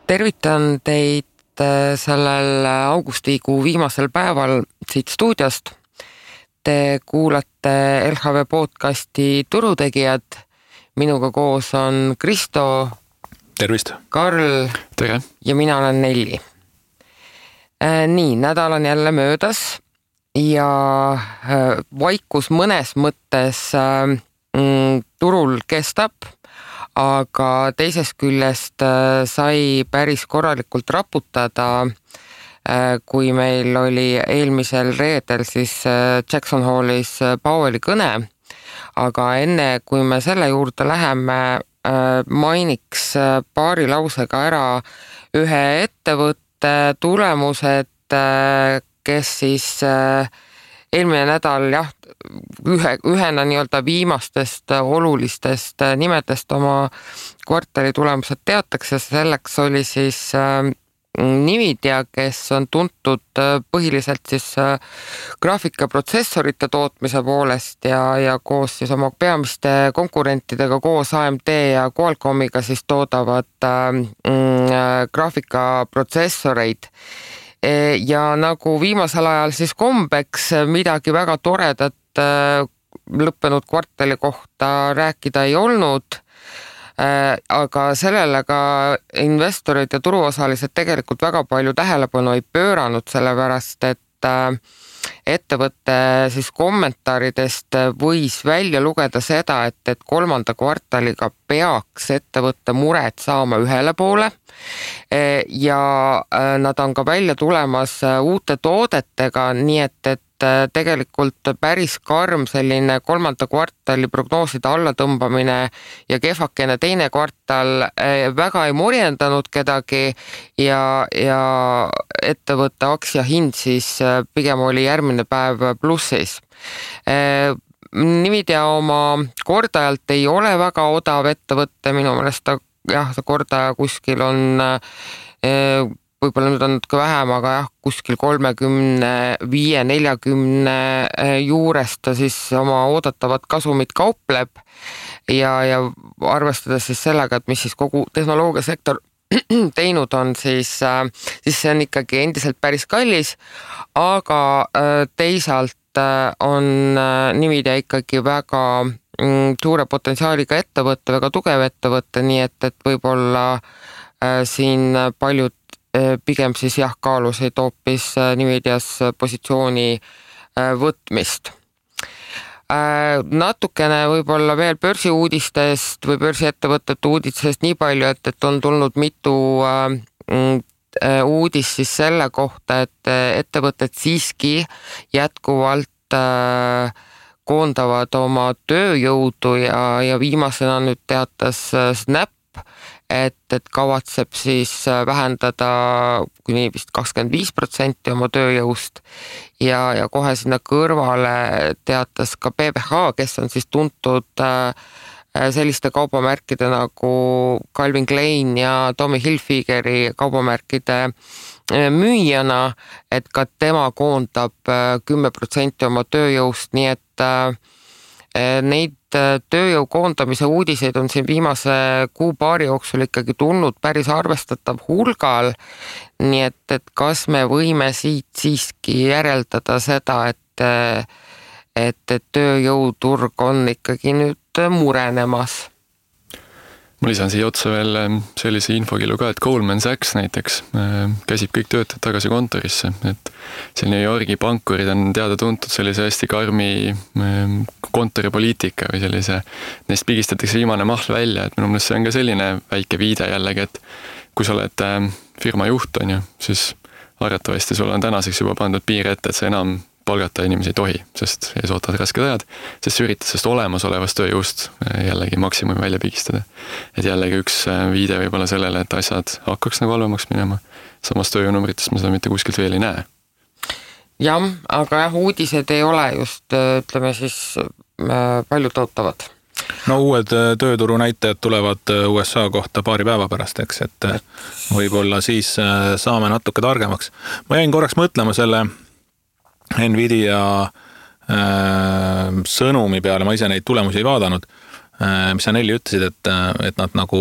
Tervitan teid sellel augustikuu viimasel päeval siit stuudiost. Te kuulate LHV podcasti Turutegijad. Minuga koos on Kristo. Tervist. Karl. Tere. Ja mina olen Nelli. Nii, nädal on jälle möödas ja vaikus mõnes mõttes turul kestab, aga teisest küljest sai päris korralikult raputada, kui meil oli eelmisel reedel siis Jackson Hallis Powelli kõne. Aga enne, kui me selle juurde läheme, mainiks paari lausega ära ühe ettevõtte tulemused, kes siis eelmine nädal ühena nii-öelda viimastest olulistest nimedest oma kvartali tulemused teatakse. Selleks oli siis Nvidia, kes on tuntud põhiliselt siis graafikaprotsessorite tootmise poolest ja koos siis oma peamiste konkurentidega koos AMD ja Qualcommiga siis toodavad graafikaprotsessoreid. Ja nagu viimasel ajal siis kombeks midagi väga toredat lõppenud kvartali kohta rääkida ei olnud, aga sellele ka investorid ja turuosalised tegelikult väga palju tähelepanu ei pööranud, sellepärast et ettevõtte siis kommentaaridest võis välja lugeda seda, et kolmanda kvartaliga peaks ettevõtte mured saama ühele poole ja nad on ka välja tulemas uute toodetega, nii et tegelikult päris karm selline kolmanda kvartali prognooside allatõmbamine ja kehvakene teine kvartal väga ei morjendanud kedagi ja ettevõtte aktsiahind siis pigem oli järgmine päev plussis. Nvidia oma kordajalt ei ole väga odav ettevõtte, minu meelest see kordaja kuskil on võib-olla nüüd on natuke vähem, aga kuskil 35-40 juurest ta siis oma oodatavat kasumit kaupleb ja arvestades siis sellega, et mis siis kogu tehnoloogiasektor teinud on, siis see on ikkagi endiselt päris kallis, aga teisalt on Nvidia ikkagi väga suure potentsiaaliga ettevõtte, väga tugev ettevõtte, nii et võib-olla siin paljud pigem siis kaalusid hoopis Nvidias positsiooni võtmist. Natukene võib-olla veel börsiuudistest või börsiettevõtete uudistest nii palju, et on tulnud mitu uudist siis selle kohta, et ettevõtted siiski jätkuvalt koondavad oma tööjõudu ja viimasena nüüd teatas Snap, et kavatseb siis vähendada kuni vist 25% oma tööjõust ja kohe sinna kõrvale teatas ka PBH, kes on siis tuntud selliste kaubamärkide nagu Calvin Klein ja Tommy Hilfigeri kaubamärkide müüjana, et ka tema koondab 10% oma tööjõust, nii et neid tööjõu koondamise uudiseid on siin viimase kuu-paari jooksul ikkagi tulnud päris arvestatav hulgal, nii et kas me võime siit siiski järeldada seda, et tööjõuturg on ikkagi nüüd murenemas? Ma lisan siia otsa veel sellise infokillu ka, et Goldman Sachs näiteks käsib kõik töötajad tagasi kontorisse, et see New Yorgi pankurid on teada tuntud sellise hästi karmi kontoripoliitika või sellise, neist pigistatakse viimane mahl välja, et minu meelest see on ka selline väike viide jällegi, et kui sa oled firma juht, on ju, siis arvatavasti sul on tänaseks juba pandud piir ette, et sa enam palgata inimesi ei tohi, sest ees ootavad rasked ajad, sest sa üritad sellest olemasolevast tööjõust jällegi maksimumi välja pigistada. Et jällegi üks viide võib-olla sellele, et asjad hakkaks nagu halvemaks minema. Samas tööjõunumritest me seda mitte kuskilt veel ei näe. Jah, aga uudised ei ole just, ütleme siis, palju tootavad. No uued tööturu näitajad tulevad USA kohta paari päeva pärast, eks, et võib-olla siis saame natuke targemaks. Ma jäin korraks mõtlema selle Nvidia sõnumi peale, ma ise neid tulemusi ei vaadanud, mis sa Nelli ütlesid, et nad nagu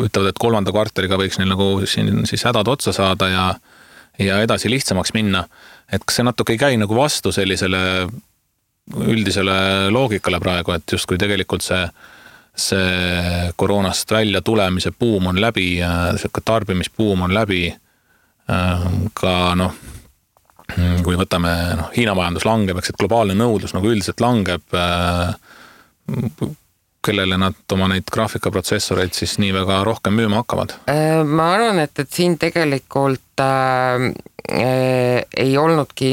ütlevad, et 3. kvartaliga võiks neil nagu siin siis hädad otsa saada ja edasi lihtsamaks minna. Et kas see natuke ei käi nagu vastu sellisele üldisele loogikale praegu, et justkui tegelikult see koroonast välja tulemise buum on läbi, tarbimisbuum on läbi, ka kui võtame Hiina majandus langeb, eks, et globaalne nõudlus nagu üldiselt langeb, kellele nad oma neid graafikaprotsessoreid siis nii väga rohkem müüma hakkavad? Ma arvan, et siin tegelikult ei olnudki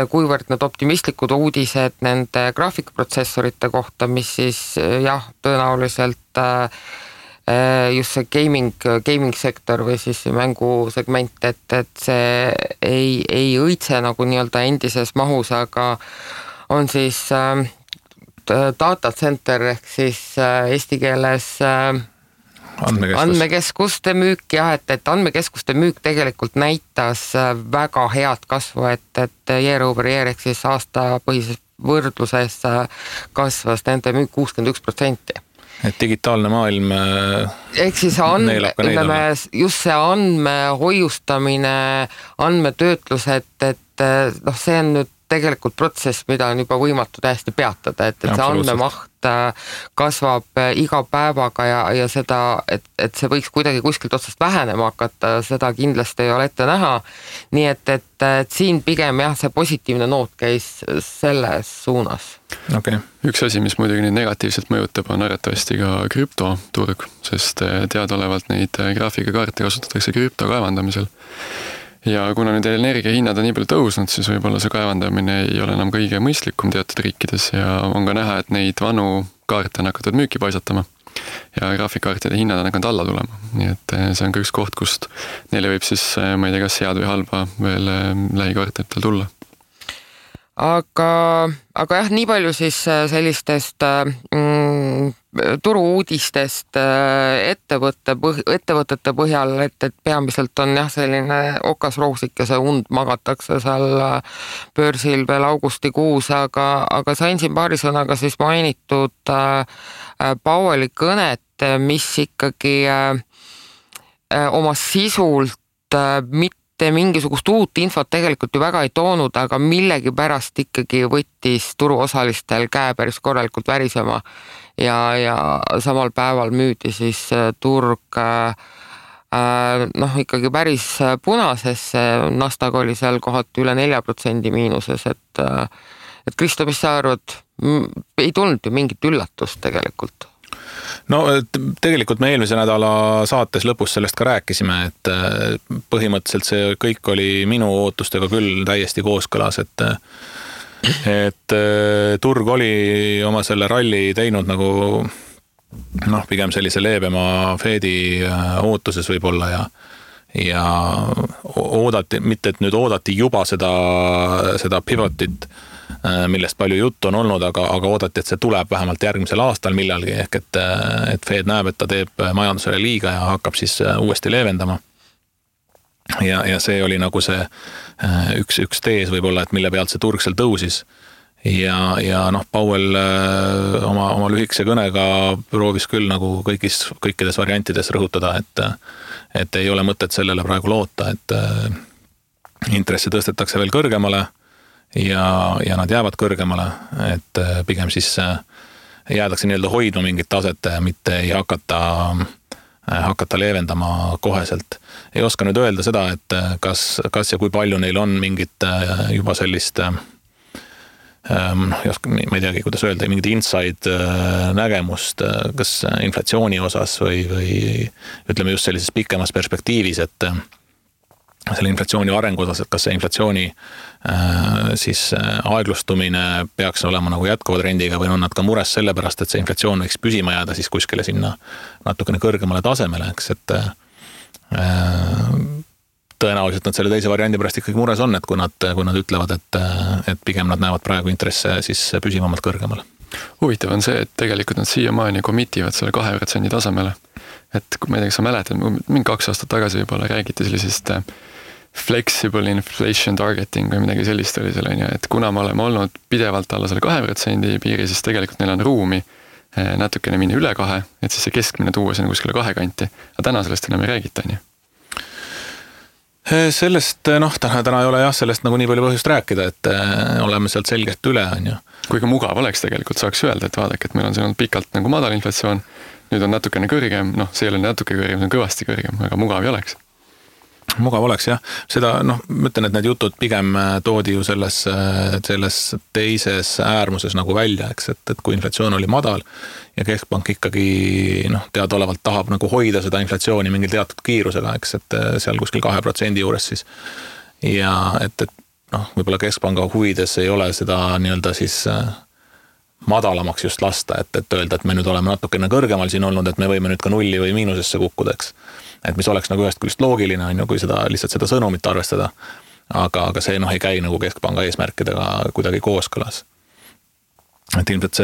kuivõrd need optimistlikud uudised nende graafikaprotsessorite kohta, mis siis tõenäoliselt just see gaming sektor või siis mängusegment, et see ei õitse nagu nii-öelda endises mahus, aga on siis data center ehk siis eesti keeles andmekeskuste müük, et andmekeskuste müük tegelikult näitas väga head kasvu, et year over year ehk siis aastapõhises võrdluses kasvas nende müük 61%. Et digitaalne maailm ehk siis just see andmehoiustamine, andmetöötlus, et see on nüüd tegelikult protsess, mida on juba võimatu täiesti peatada, et see andmemaht kasvab iga päevaga ja seda, et see võiks kuidagi kuskilt otsast vähenema hakata, seda kindlasti ei ole ette näha. Nii et siin pigem see positiivne noot käis selles suunas. Okay. Üks asi, mis muidugi neid negatiivselt mõjutab, on arvatavasti ka krüptoturg, sest teadaolevalt neid graafikakaarte kasutatakse krüpto kaevandamisel. Ja kuna nüüd energiahinnad on nii palju tõusnud, siis võib-olla see kaevandamine ei ole enam kõige mõistlikum teatud riikides ja on ka näha, et neid vanu kaarte on hakatud müüki paisatama ja graafikkaartide hinnad on hakanud alla tulema. Nii et see on ka üks koht, kust neile võib siis, ma ei tea, kas head või halba veel lähikvartalitel tulla. Aga nii palju siis sellistest turu-uudistest ettevõtete põhjal, et peamiselt on selline okasroosikese und magatakse seal börsil veel augustikuus, aga sain siin paari sõnaga siis mainitud Powelli kõnet, mis ikkagi oma sisult mitte mingisugust uut infot tegelikult ju väga ei toonud, aga millegi pärast ikkagi võttis turuosalistel käe päris korralikult värisema ja samal päeval müüdi siis turg ikkagi päris punasesse, Nasdaq oli seal kohati üle 4% miinuses, et Kristo, mis sa arvad, ei tulnud ju mingit üllatust tegelikult? No tegelikult me eelmise nädala saates lõpus sellest ka rääkisime, et põhimõtteliselt see kõik oli minu ootustega küll täiesti kooskõlas, et turg oli oma selle ralli teinud nagu pigem sellise leebema Fedi ootuses võib-olla ja oodati, mitte et nüüd oodati juba seda pivotit, millest palju juttu on olnud, aga oodati, et see tuleb vähemalt järgmisel aastal millalgi, ehk et Fed näeb, et ta teeb majandusele liiga ja hakkab siis uuesti leevendama. Ja see oli nagu see üks tees võib-olla, et mille pealt see turg seal tõusis. Ja Powell oma lühikese kõnega proovis küll nagu kõikides variantides rõhutada, et ei ole mõtet sellele praegu loota, et intressi tõstetakse veel kõrgemale ja nad jäävad kõrgemale, et pigem siis jäädakse nii-öelda hoidma mingit taset, mitte ei hakata leevendama koheselt. Ei oska nüüd öelda seda, et kas ja kui palju neil on mingit juba sellist ma ei teagi, kuidas öelda, mingid inside nägemust, kas inflatsiooni osas või ütleme just sellises pikemas perspektiivis, et selle inflatsiooni arengu osas, et kas see inflatsiooni siis aeglustumine peaks olema nagu jätkuva trendiga või on nad ka mures sellepärast, et see inflatsioon võiks püsima jääda siis kuskile sinna natukene kõrgemale tasemele, eks, et tõenäoliselt nad selle teise variandi pärast ikkagi mures on, et kui nad ütlevad, et pigem nad näevad praegu intresse siis püsivamalt kõrgemale. Huvitav on see, et tegelikult nad siiamaani komitivad selle 2% tasemele. Et ma ei tea, kas sa mäletad, mingi 2 aastat tagasi võib-olla räägiti sellisest flexible inflation targeting või midagi sellist oli seal, et kuna me oleme olnud pidevalt alla selle 2% piiri, siis tegelikult neil on ruumi natukene minna üle 2, et siis see keskmine tuua sinna kuskile 2 kanti. Aga täna sellest enam ei räägita, on ju? Sellest, täna ei ole jah, sellest nagu nii palju põhjust rääkida, et oleme sealt selgelt üle, on ju. Kuigi mugav oleks tegelikult, saaks öelda, et vaadake, et meil on siin olnud pikalt nagu madal inflatsioon, nüüd on natukene kõrgem, see ei ole natuke kõrgem, see on kõvasti kõrgem, aga mugav ei oleks. Mugav oleks jah, seda ma ütlen, et need jutud pigem toodi ju selles teises äärmuses nagu välja, eks, et kui inflatsioon oli madal ja keskpank ikkagi teadaolevalt tahab nagu hoida seda inflatsiooni mingil teatud kiirusega, eks, et seal kuskil 2% juures siis ja et võib-olla keskpanga huvides ei ole seda nii-öelda siis madalamaks just lasta, et öelda, et me nüüd oleme natukene kõrgemal siin olnud, et me võime nüüd ka nulli või miinusesse kukkuda, eks. Et mis oleks nagu ühest küljest loogiline, on ju, kui lihtsalt seda sõnumit arvestada, aga see ei käi nagu keskpanga eesmärkidega kuidagi kooskõlas. Et ilmselt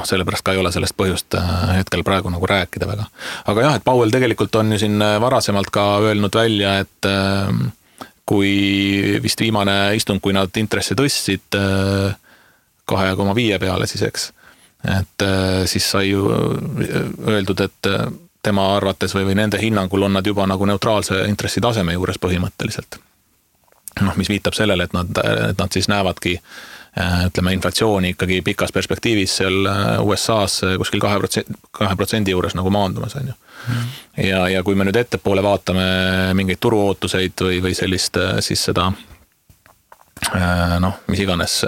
sellepärast ka ei ole sellest põhjust hetkel praegu nagu rääkida väga. Aga jah, et Powell tegelikult on ju siin varasemalt ka öelnud välja, et kui vist viimane istung, kui nad intressi tõstsid 2,5 peale siis, eks, et siis sai ju öeldud, et tema arvates või nende hinnangul on nad juba nagu neutraalse intressi taseme juures põhimõtteliselt. Mis viitab sellele, et nad siis näevadki, ütleme, inflatsiooni ikkagi pikas perspektiivis seal USA-s kuskil 2% juures nagu maandumas, on ju. Ja kui me nüüd ettepoole vaatame mingeid turuootuseid või sellist siis seda, mis iganes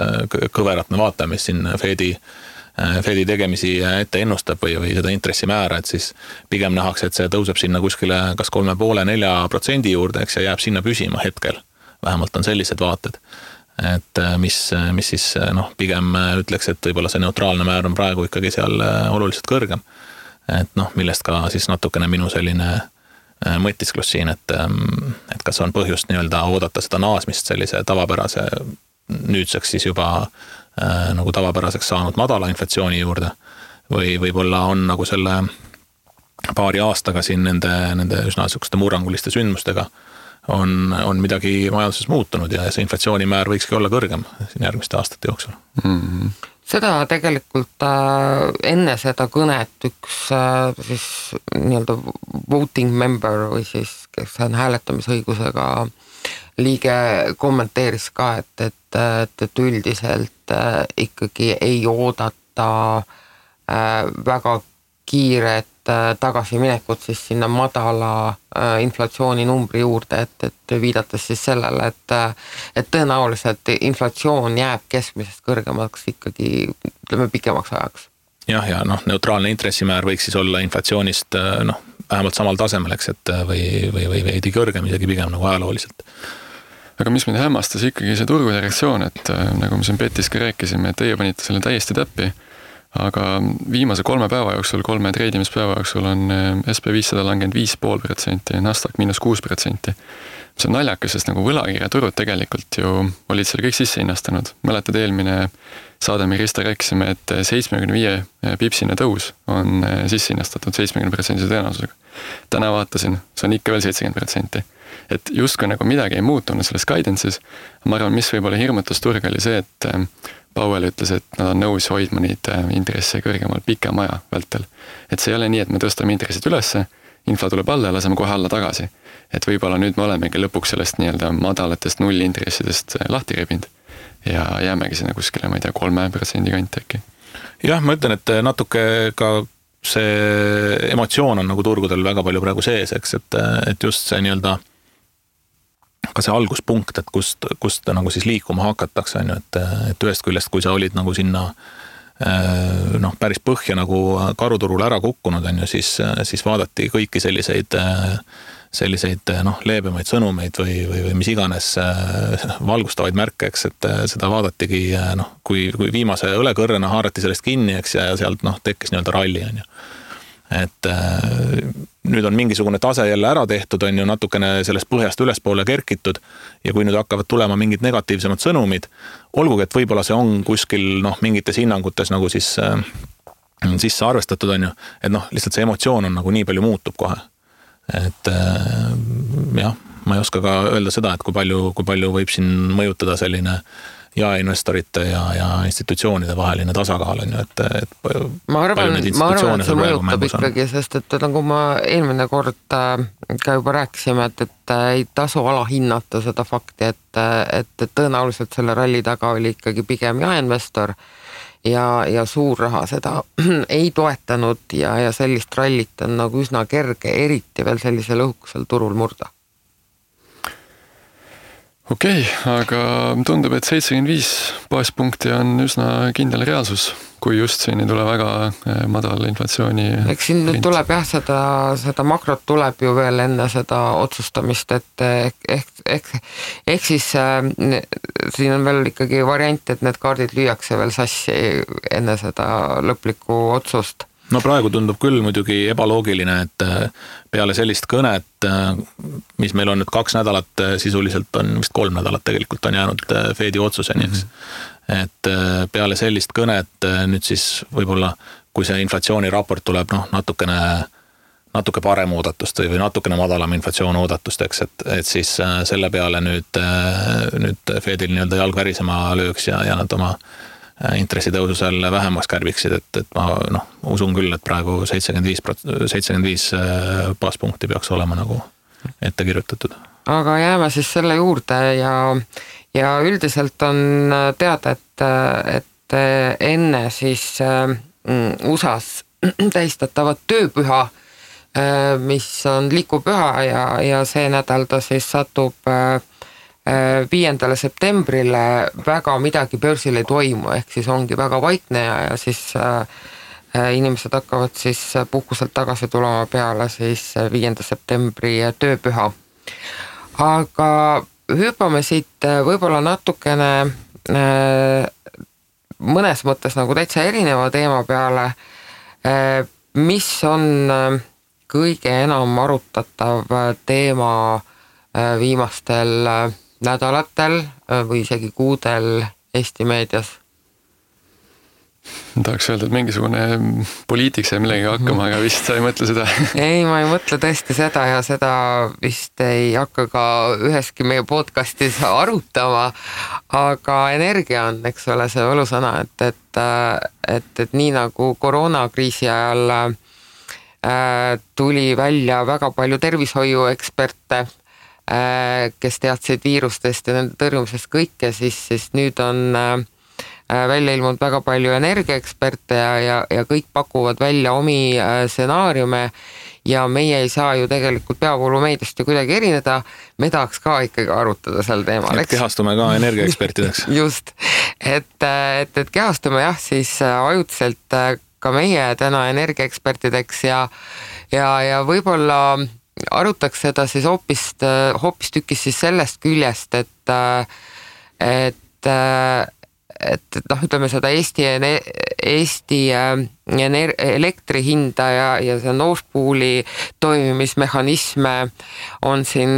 kõverat me vaatame, mis siin Fedi tegemisi ette ennustab või seda intressimäära, et siis pigem nähakse, et see tõuseb sinna kuskile kas 3,5–4% juurde, eks, ja jääb sinna püsima hetkel. Vähemalt on sellised vaated, et mis siis pigem ütleks, et võib-olla see neutraalne määr on praegu ikkagi seal oluliselt kõrgem. Et millest ka siis natukene minu selline mõtisklus siin, et kas on põhjust nii-öelda oodata seda naasmist sellise tavapärase nüüdseks siis juba nagu tavapäraseks saanud madala inflatsiooni juurde või võib-olla on nagu selle paari aastaga siin nende üsna sükste murranguliste sündmustega on midagi majanduses muutunud ja see inflatsioonimäär võikski olla kõrgem siin järgmiste aastate jooksul. Mm-hmm. Seda tegelikult enne seda kõnet üks siis nii-öelda voting member või siis kes on hääletamisõigusega liige kommenteeris ka, et üldiselt ikkagi ei oodata väga kiiret tagasiminekut siis sinna madala inflatsiooni numbri juurde, et viidates siis sellele, et tõenäoliselt inflatsioon jääb keskmisest kõrgemaks ikkagi, ütleme, pikemaks ajaks. Jah, ja neutraalne intressimäär võiks siis olla inflatsioonist vähemalt samal tasemel, eks, et või veidi kõrgem isegi pigem nagu ajalooliselt. Aga mis mind hämmastas ikkagi see turgude reaktsioon, et nagu me siin Petis ka rääkisime, et teie panite selle täiesti täppi, aga viimase 3 päeva jooksul, 3 treidimispäeva jooksul on SP500 langenud 5,5%, Nasdaq -6%. See on naljakas, sest nagu võlakirjaturud tegelikult ju olid seal kõik sisse hinnastanud. Mäletad, eelmine saade me Krista rääkisime, et 75 pipsine tõus on sisse hinnastatud 70% tõenäosusega. Täna vaatasin, see on ikka veel 70%. Et justkui nagu midagi ei muutunud selles guidance'is. Ma arvan, mis võib-olla hirmutas turg oli see, et Powell ütles, et nad on nõus hoidma neid intresse kõrgemal pikem aja vältel. Et see ei ole nii, et me tõstame intressid ülesse, infla tuleb alla ja laseme kohe alla tagasi. Et võib-olla nüüd me olemegi lõpuks sellest nii-öelda madalatest nullintressidest lahti rebind ja jäämegi sinna kuskile, ma ei tea, 3% kanti äkki. Jah, ma ütlen, et natuke ka see emotsioon on nagu turgudel väga palju praegu sees, eks, et just see nii-öelda ka see alguspunkt, et kust nagu siis liikuma hakatakse, on ju, et ühest küljest, kui sa olid nagu sinna päris põhja nagu karuturul ära kukkunud, on ju, siis vaadati kõiki selliseid leebemaid sõnumeid või mis iganes valgustavaid märke, eks, et seda vaadatigi, kui viimase õlekõrrena haarati sellest kinni, eks, ja sealt tekkis nii-öelda ralli, on ju. Et nüüd on mingisugune tase jälle ära tehtud, on ju, natukene sellest põhjast ülespoole kerkitud ja kui nüüd hakkavad tulema mingid negatiivsemad sõnumid, olgugi, et võib-olla see on kuskil mingites hinnangutes nagu siis sisse arvestatud, on ju, et lihtsalt see emotsioon on nagu nii palju muutub kohe. Et jah, ma ei oska ka öelda seda, et kui palju võib siin mõjutada selline jaeinvestorite ja institutsioonide vaheline tasakaal on ju, et ma arvan, et see mõjutab ikkagi, sest et nagu ma eelmine kord ka juba rääkisime, et ei tasu alahinnata seda fakti, et tõenäoliselt selle ralli taga oli ikkagi pigem jaeinvestor ja suur raha seda ei toetanud ja sellist rallit on nagu üsna kerge, eriti veel sellisel õhukesel turul murda. Okei, aga tundub, et 75 baaspunkti on üsna kindel reaalsus, kui just siin ei tule väga madal inflatsiooni. Eks siin nüüd tuleb jah, seda makrot tuleb ju veel enne seda otsustamist, et ehk siis siin on veel ikkagi variant, et need kaardid lüüakse veel sassi enne seda lõplikku otsust. No praegu tundub küll muidugi ebaloogiline, et peale sellist kõnet, mis meil on nüüd 2 nädalat, sisuliselt on vist 3 nädalat tegelikult on jäänud Fedi otsuseni, eks. Et peale sellist kõnet nüüd siis võib-olla, kui see inflatsiooniraport tuleb natuke parem oodatust või natukene madalam inflatsioon oodatust, eks, et siis selle peale nüüd Fedil nii-öelda jalg värisema lööks ja nad oma intressitõusu seal vähemaks kärbiksid, et ma usun küll, et praegu 75 baaspunkti peaks olema nagu ette kirjutatud. Aga jääme siis selle juurde ja üldiselt on teada, et enne siis USA-s tähistatavat tööpüha, mis on lipupüha ja see nädal ta siis satub 5. septembrile, väga midagi börsil ei toimu, ehk siis ongi väga vaikne ja siis inimesed hakkavad siis puhkuselt tagasi tulema peale siis 5. septembri tööpüha. Aga hüppame siit võib-olla natukene mõnes mõttes nagu täitsa erineva teema peale, mis on kõige enam arutatav teema viimastel nädalatel või isegi kuudel Eesti meedias? Tahaks öelda, et mingisugune poliitik sai millegi hakkama, aga vist sa ei mõtle seda. Ei, ma ei mõtle tõesti seda ja seda vist ei hakka ka üheski meie podcastis arutama, aga energia on, eks ole, see võlusõna, et nii nagu koroonakriisi ajal tuli välja väga palju tervishoiueksperte, kes teadsid viirustest ja nende tõrjumisest kõike, siis nüüd on välja ilmunud väga palju energiaeksperte ja kõik pakuvad välja omi stsenaariume ja meie ei saa ju tegelikult peavoolumeediast ju kuidagi erineda, me tahaks ka ikkagi arutada sel teemal. Et kehastume ka energiaekspertideks. Just, et kehastume jah, siis ajutiselt ka meie täna energiaekspertideks ja võib-olla arutaks seda siis hoopistükkis siis sellest küljest, et ütleme seda Eesti elektri hinda ja see Nord Pooli toimimismehhanisme on siin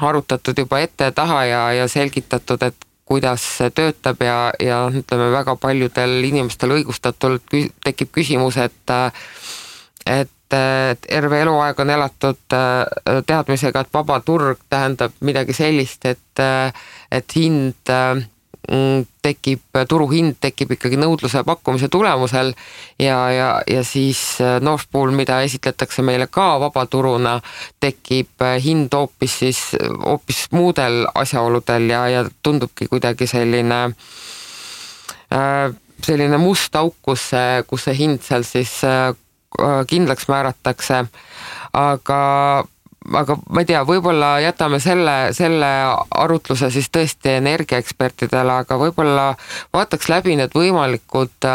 arutatud juba ette taha ja selgitatud, et kuidas see töötab ja ütleme väga paljudel inimestel õigustatult tekib küsimus, et terve eluaeg on elatud teadmisega, et vaba turg tähendab midagi sellist, et hind turuhind tekib ikkagi nõudluse pakkumise tulemusel ja siis Nord Pool, mida esitletakse meile ka vabaturuna, tekib hind hoopis muudel asjaoludel ja tundubki kuidagi selline must auk, kus see hind seal siis kindlaks määratakse, aga ma ei tea, võib-olla jätame selle arutluse siis tõesti energiaekspertidele, aga võib-olla vaataks läbi need võimalikud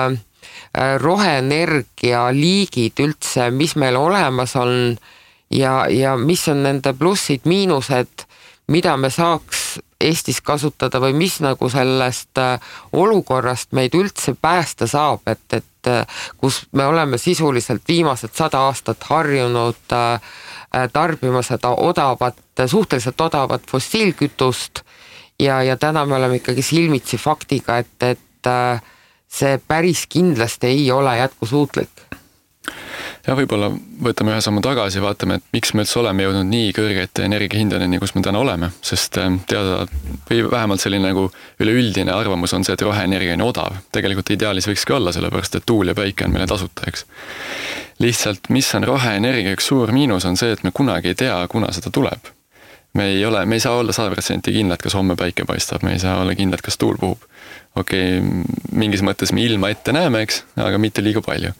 roheenergia liigid üldse, mis meil olemas on ja mis on nende plussid, miinused, mida me saaks Eestis kasutada või mis nagu sellest olukorrast meid üldse päästa saab, et kus me oleme sisuliselt viimased 100 aastat harjunud tarbima seda suhteliselt odavat fossiilkütust ja täna me oleme ikkagi silmitsi faktiga, et see päris kindlasti ei ole jätkusuutlik. Ja võib-olla võtame ühe sammu tagasi, vaatame, et miks me üldse oleme jõudnud nii kõrgete energiahindadeni, kus me täna oleme, sest teada või vähemalt selline nagu üleüldine arvamus on see, et roheenergia on odav. Tegelikult ideaalis võikski olla, sellepärast et tuul ja päike on meile tasuta, eks. Lihtsalt, mis on roheenergia üks suur miinus, on see, et me kunagi ei tea, kuna seda tuleb. Me ei saa olla 100% kindlad, kas homme päike paistab, me ei saa olla kindlad, kas tuul puhub. Okei, mingis mõttes me ilma ette näeme, eks, aga mitte liiga palju.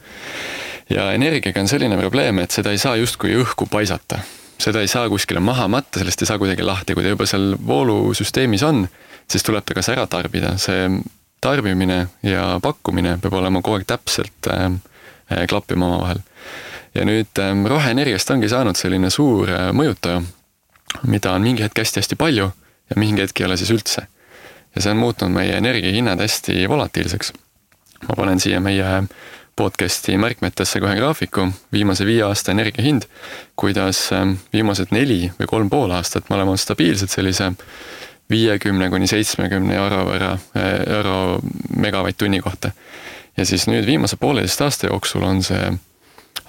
Ja energiaga on selline probleem, et seda ei saa justkui õhku paisata. Seda ei saa kuskile maha matta, sellest ei saa kuidagi lahti. Kui ta juba seal voolusüsteemis on, siis tuleb ta kas ära tarbida. See tarbimine ja pakkumine peab olema kogu aeg täpselt klappima oma vahel. Ja nüüd roheenergiast ongi saanud selline suur mõjutaja, mida on mingi hetk hästi palju ja mingi hetk ei ole siis üldse. Ja see on muutnud meie energiahinnad hästi volatiilseks. Ma panen siia meie podcasti märkmetesse kohe graafiku, viimase 5 aasta energiahind, kuidas viimased 4 või 3,5 aastat me oleme stabiilsed sellise 50–70 euro megavatt-tunni kohta. Ja siis nüüd viimase 1,5 aasta jooksul on see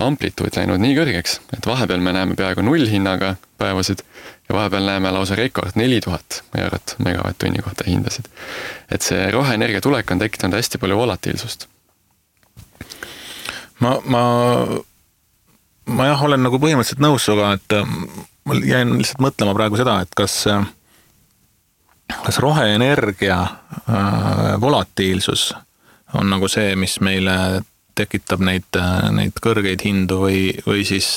amplituud läinud nii kõrgeks, et vahepeal me näeme peaaegu 0 hinnaga päevasid ja vahepeal näeme lausa rekord 4000 eurot megavatt-tunni kohta hindasid. Et see roheenergia tulek on tekitanud hästi palju volatiilsust. Ma jah, olen nagu põhimõtteliselt nõus suga, et ma jäin lihtsalt mõtlema praegu seda, et kas roheenergia volatiilsus on nagu see, mis meile tekitab neid kõrgeid hindu või siis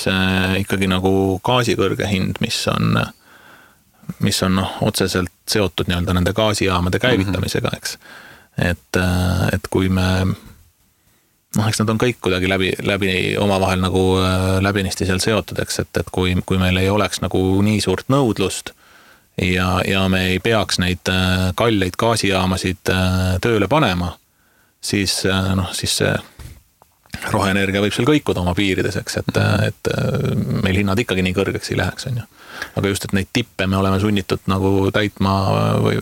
ikkagi nagu gaasi kõrge hind, mis on otseselt seotud nii-öelda nende gaasijaamade käivitamisega, eks. Et kui me eks nad on kõik kuidagi läbi omavahel nagu läbinisti seal seotud, eks, et kui meil ei oleks nagu nii suurt nõudlust ja me ei peaks neid kalleid gaasijaamasid tööle panema, siis see roheenergia võib seal kõikuda oma piirides, eks, et meil hinnad ikkagi nii kõrgeks ei läheks, on ju. Aga just, et neid tippe me oleme sunnitud nagu täitma või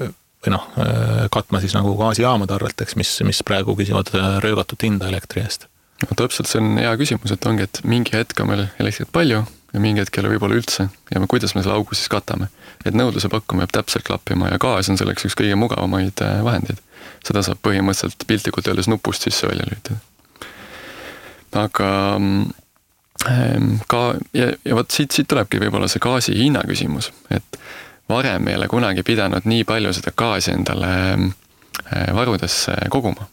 katma siis nagu gaasijaamade arvelt, eks, mis praegu küsivad röögatut hinda elektri eest. No, täpselt, see on hea küsimus, et ongi, et mingi hetk on meil elektrit palju ja mingi hetk ei ole võib-olla üldse ja kuidas me selle augu siis katame. Et nõudluse pakkuma jääb täpselt klappima ja gaas on selleks üks kõige mugavamaid vahendeid. Seda saab põhimõtteliselt piltlikult öeldes nupust sisse välja lüütada. Aga ja võt siit tulebki võib-olla see gaasi hinna küsimus, et varem ei ole kunagi pidanud nii palju seda gaasi endale varudesse koguma.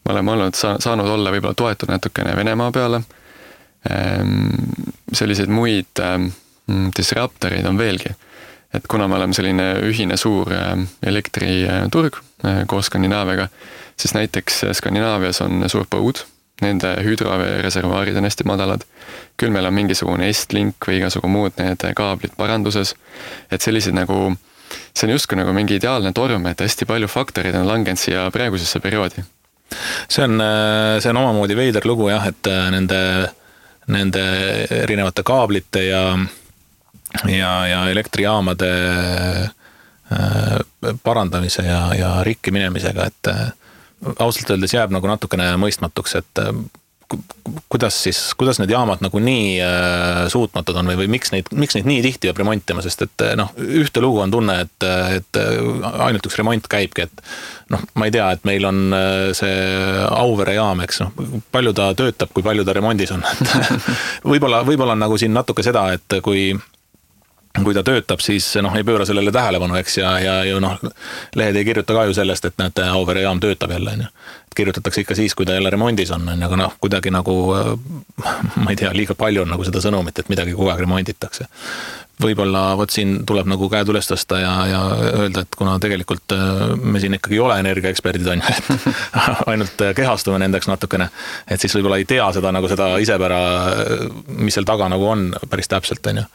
Me oleme saanud olla võib-olla toetud natukene Venemaa peale. Selliseid muid disruptoreid on veelgi. Et kuna me oleme selline ühine suur elektriturg koos Skandinaaviaga, siis näiteks Skandinaavias on suur põud, nende hüdroreservaarid on hästi madalad, küll meil on mingisugune Estlink või igasugu muud need kaablid paranduses, et sellised nagu, see on justkui nagu mingi ideaalne torm, et hästi palju faktorid on langenud siia praegusesse perioodi. See on omamoodi veider lugu jah, et nende erinevate kaablite ja elektrijaamade parandamise ja rikki minemisega, et ausalt öeldes jääb nagu natukene mõistmatuks, et kuidas need jaamad nagu nii suutmatud on või miks neid nii tihti peab remontima, sest et ühte lugu on tunne, et ainult üks remont käibki, et ma ei tea, et meil on see Auvere jaam, eks, palju ta töötab, kui palju ta remondis on. Võib-olla on nagu siin natuke seda, et kui ta töötab, siis ei pööra sellele tähelepanu, eks, ja lehed ei kirjuta ka ju sellest, et näete, Auvere jaam töötab jälle, on ju. Kirjutatakse ikka siis, kui ta jälle remondis on, aga kuidagi nagu, ma ei tea, liiga palju on nagu seda sõnumit, et midagi kogu aeg remonditakse. Võib-olla siin tuleb nagu käed üles tõsta ja öelda, et kuna tegelikult me siin ikkagi ei ole energiaeksperdid, on ju, et ainult kehastume nendeks natukene, et siis võib-olla ei tea seda nagu seda isepära, mis seal taga nagu on päris täpselt, on ju.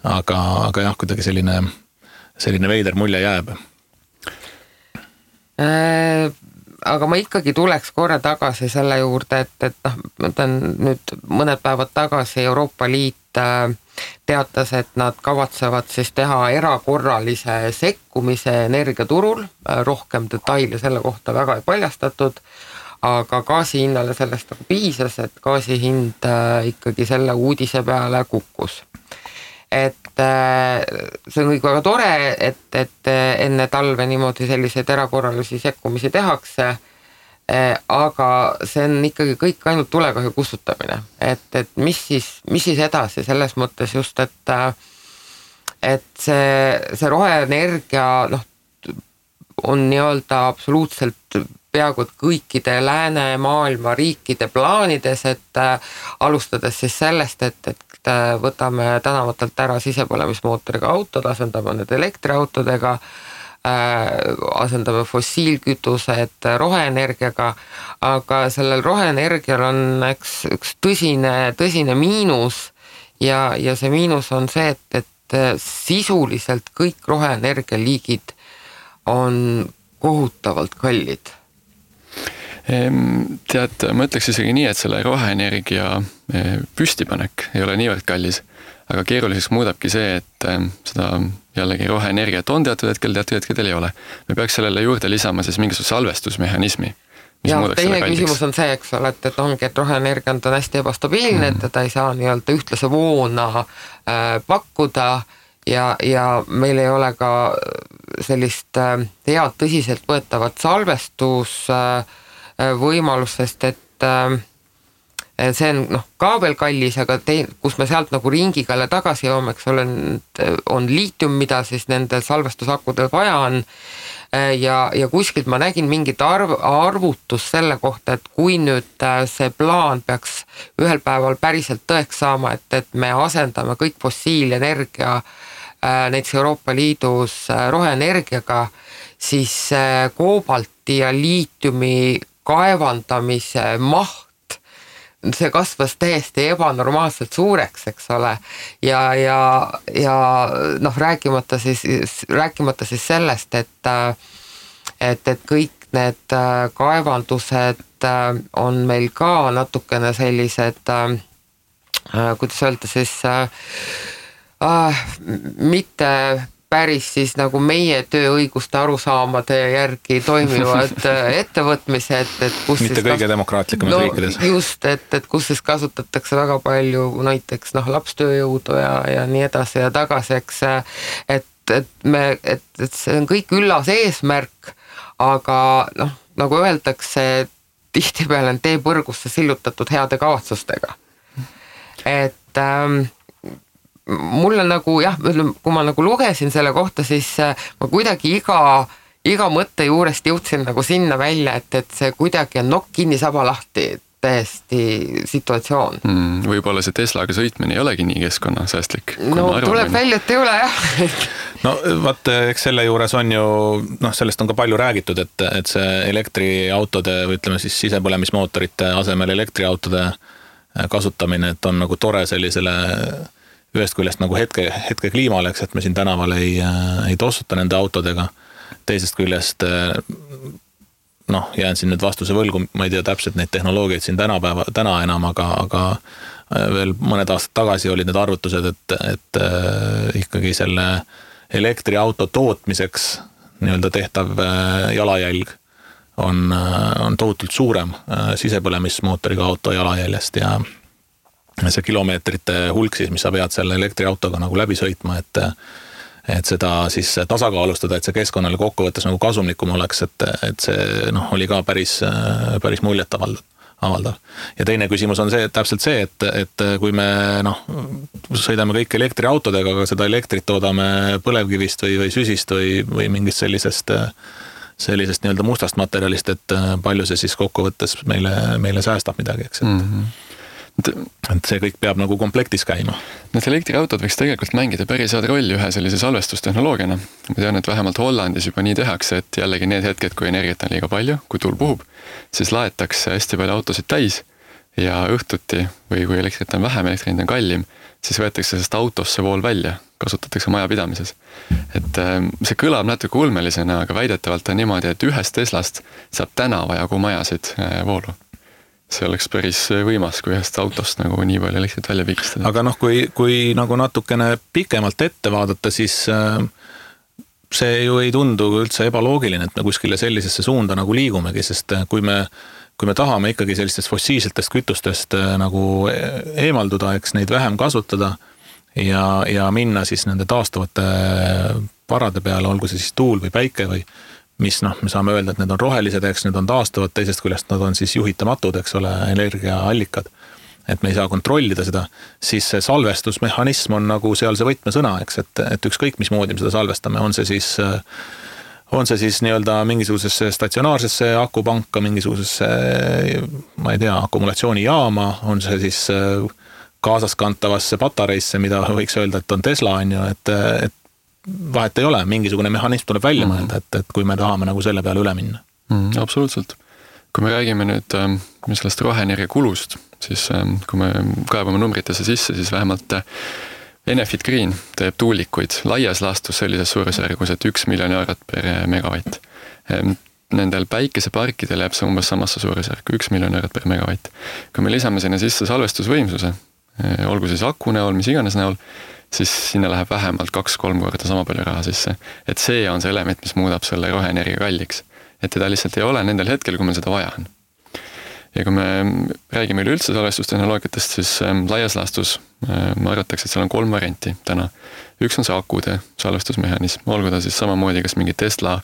Aga jah, kuidagi selline veider mulje jääb. Aga ma ikkagi tuleks korra tagasi selle juurde, et nüüd mõned päevad tagasi Euroopa Liit teatas, et nad kavatsevad siis teha erakorralise sekkumise energiaturul, rohkem detaile selle kohta väga ei paljastatud, aga gaasi hinnale sellest nagu piisas, et gaasi hind ikkagi selle uudise peale kukkus. Et see on kõik väga tore, et enne talve niimoodi selliseid erakorralisi sekkumisi tehakse, aga see on ikkagi kõik ainult tulekahju kustutamine. Et mis siis edasi selles mõttes just, et see roheenergia on nii-öelda absoluutselt peaaegu kõikide läänemaailma riikide plaanides, et alustades siis sellest, et võtame tänavatelt ära sisepõlemismootoriga autod, asendame need elektriautodega, asendame fossiilkütused roheenergiaga, aga sellel roheenergial on üks tõsine miinus ja see miinus on see, et sisuliselt kõik roheenergia liigid on kohutavalt kallid. Tead, ma ütleks isegi nii, et selle roheenergia püstipanek ei ole niivõrd kallis, aga keeruliseks muudabki see, et seda jällegi roheenergiat on teatud hetkedel ei ole. Me peaks sellele juurde lisama siis mingisuguse salvestusmehhanismi. Ja teine küsimus on see, eks ole, et ongi, et roheenergia on hästi ebastabiilne, et ta ei saa nii-öelda ühtlase voona pakkuda ja meil ei ole ka sellist head tõsiselt võetavat salvestus võimalusest, et see on ka veel kallis, aga kus me sealt nagu ringiga tagasi joome, eks ole, on liitium, mida siis nende salvestusakudel vaja on ja kuskilt ma nägin mingit arvutus selle kohta, et kui nüüd see plaan peaks ühel päeval päriselt tõeks saama, et me asendame kõik fossiilenergia näiteks Euroopa Liidus roheenergiaga, siis koobalti ja liitiumi kaevandamise maht, see kasvas täiesti ebanormaalselt suureks, eks ole, ja rääkimata siis sellest, et kõik need kaevandused on meil ka natukene sellised, kuidas öelda siis, mitte päris siis nagu meie tööõiguste arusaamade järgi toimivad ettevõtmised, et kus mitte siis kõige demokraatlikumas riikides. Just, et kus siis kasutatakse väga palju näiteks lapstööjõudu ja nii edasi ja tagasi, eks, et see on kõik üllas eesmärk, aga nagu öeldakse, tihtipeale on tee põrgusse sillutatud heade kavatsustega. Et mulle nagu kui ma nagu lugesin selle kohta, siis ma kuidagi iga mõtte juurest jõudsin nagu sinna välja, et see kuidagi on nokk kinni saba lahti täiesti situatsioon. Võib-olla see Teslaga sõitmine ei olegi nii keskkonnasäästlik. Tuleb välja, et ei ole, jah. No vaat, eks selle juures on ju, sellest on ka palju räägitud, et see elektriautode või ütleme siis sisepõlemismootorite asemel elektriautode kasutamine, et on nagu tore sellisele ühest küljest nagu hetke kliimale, eks, et me siin tänaval ei tossuta nende autodega. Teisest küljest, jään siin nüüd vastuse võlgu, ma ei tea täpselt neid tehnoloogiaid siin täna enam, aga veel mõned aastad tagasi olid need arvutused, et ikkagi selle elektriauto tootmiseks nii-öelda tehtav jalajälg on tohutult suurem sisepõlemismootoriga auto jalajäljest ja see kilomeetrite hulk siis, mis sa pead selle elektriautoga nagu läbi sõitma, et seda siis tasakaalustada, et see keskkonnale kokkuvõttes nagu kasumlikum oleks, et see oli ka päris muljet avaldav. Ja teine küsimus on see, täpselt see, et kui me sõidame kõik elektriautodega, aga seda elektrit toodame põlevkivist või süsist või mingist sellisest nii-öelda mustast materjalist, et palju see siis kokkuvõttes meile säästab midagi, eks, et see kõik peab nagu komplektis käima. Need elektriautod võiks tegelikult mängida päris head rolli ühe sellise salvestustehnoloogiana. Ma tean, et vähemalt Hollandis juba nii tehakse, et jällegi need hetked, kui energiat on liiga palju, kui tuul puhub, siis laetakse hästi palju autosid täis ja õhtuti või kui elektrit on vähem, elektrit on kallim, siis võetakse sellest autosse vool välja, kasutatakse majapidamises. Et see kõlab natuke ulmelisena, aga väidetavalt on niimoodi, et ühest Teslast saab tänava jagu majasid voolu. See oleks päris võimas, kui ühest autost nagu nii palju elektrit välja pigistada. Aga kui nagu natukene pikemalt ette vaadata, siis see ju ei tundu üldse ebaloogiline, et me kuskile sellisesse suunda nagu liigumegi, sest kui me tahame ikkagi sellistest fossiilsetest kütustest nagu eemalduda, eks neid vähem kasutada ja minna siis nende taastuvate varade peale, olgu see siis tuul või päike või mis me saame öelda, et need on rohelised, eks need on taastuvad, teisest küljest nad on siis juhitamatud, eks ole, energiaallikad. Et me ei saa kontrollida seda, siis see salvestusmehhanism on nagu seal see võtmesõna, eks, et ükskõik mis moodi me seda salvestame, on see siis nii-öelda mingisugusesse statsionaarsesse akupanka, mingisugusesse, ma ei tea, akumulatsioonijaama, on see siis kaasaskantavasse patareisse, mida võiks öelda, et on Tesla, on ju, et vahet ei ole, mingisugune mehhanism tuleb välja mõelda, et kui me tahame nagu selle peale üle minna. Absoluutselt. Kui me räägime nüüd sellest roheenergia kulust, siis kui me kaebame numbritesse sisse, siis vähemalt Enefit Green teeb tuulikuid laias laastus sellises suurusjärgus, et 1 miljon eurot per megavatt. Nendel päikeseparkidel jääb see umbes samasse suurusjärku, 1 miljon eurot per megavatt. Kui me lisame sinna sisse salvestusvõimsuse, olgu siis aku näol, mis iganes näol, siis sinna läheb vähemalt 2-3 korda sama palju raha sisse. Et see on see element, mis muudab selle roheenergia kalliks. Et teda lihtsalt ei ole nendel hetkel, kui meil seda vaja on. Ja kui me räägime üleüldse salvestustehnoloogiatest, siis laias laastus ma arvatakse, et seal on 3 varianti täna. Üks on see akude salvestusmehhanism, olgu ta siis samamoodi kas mingi Tesla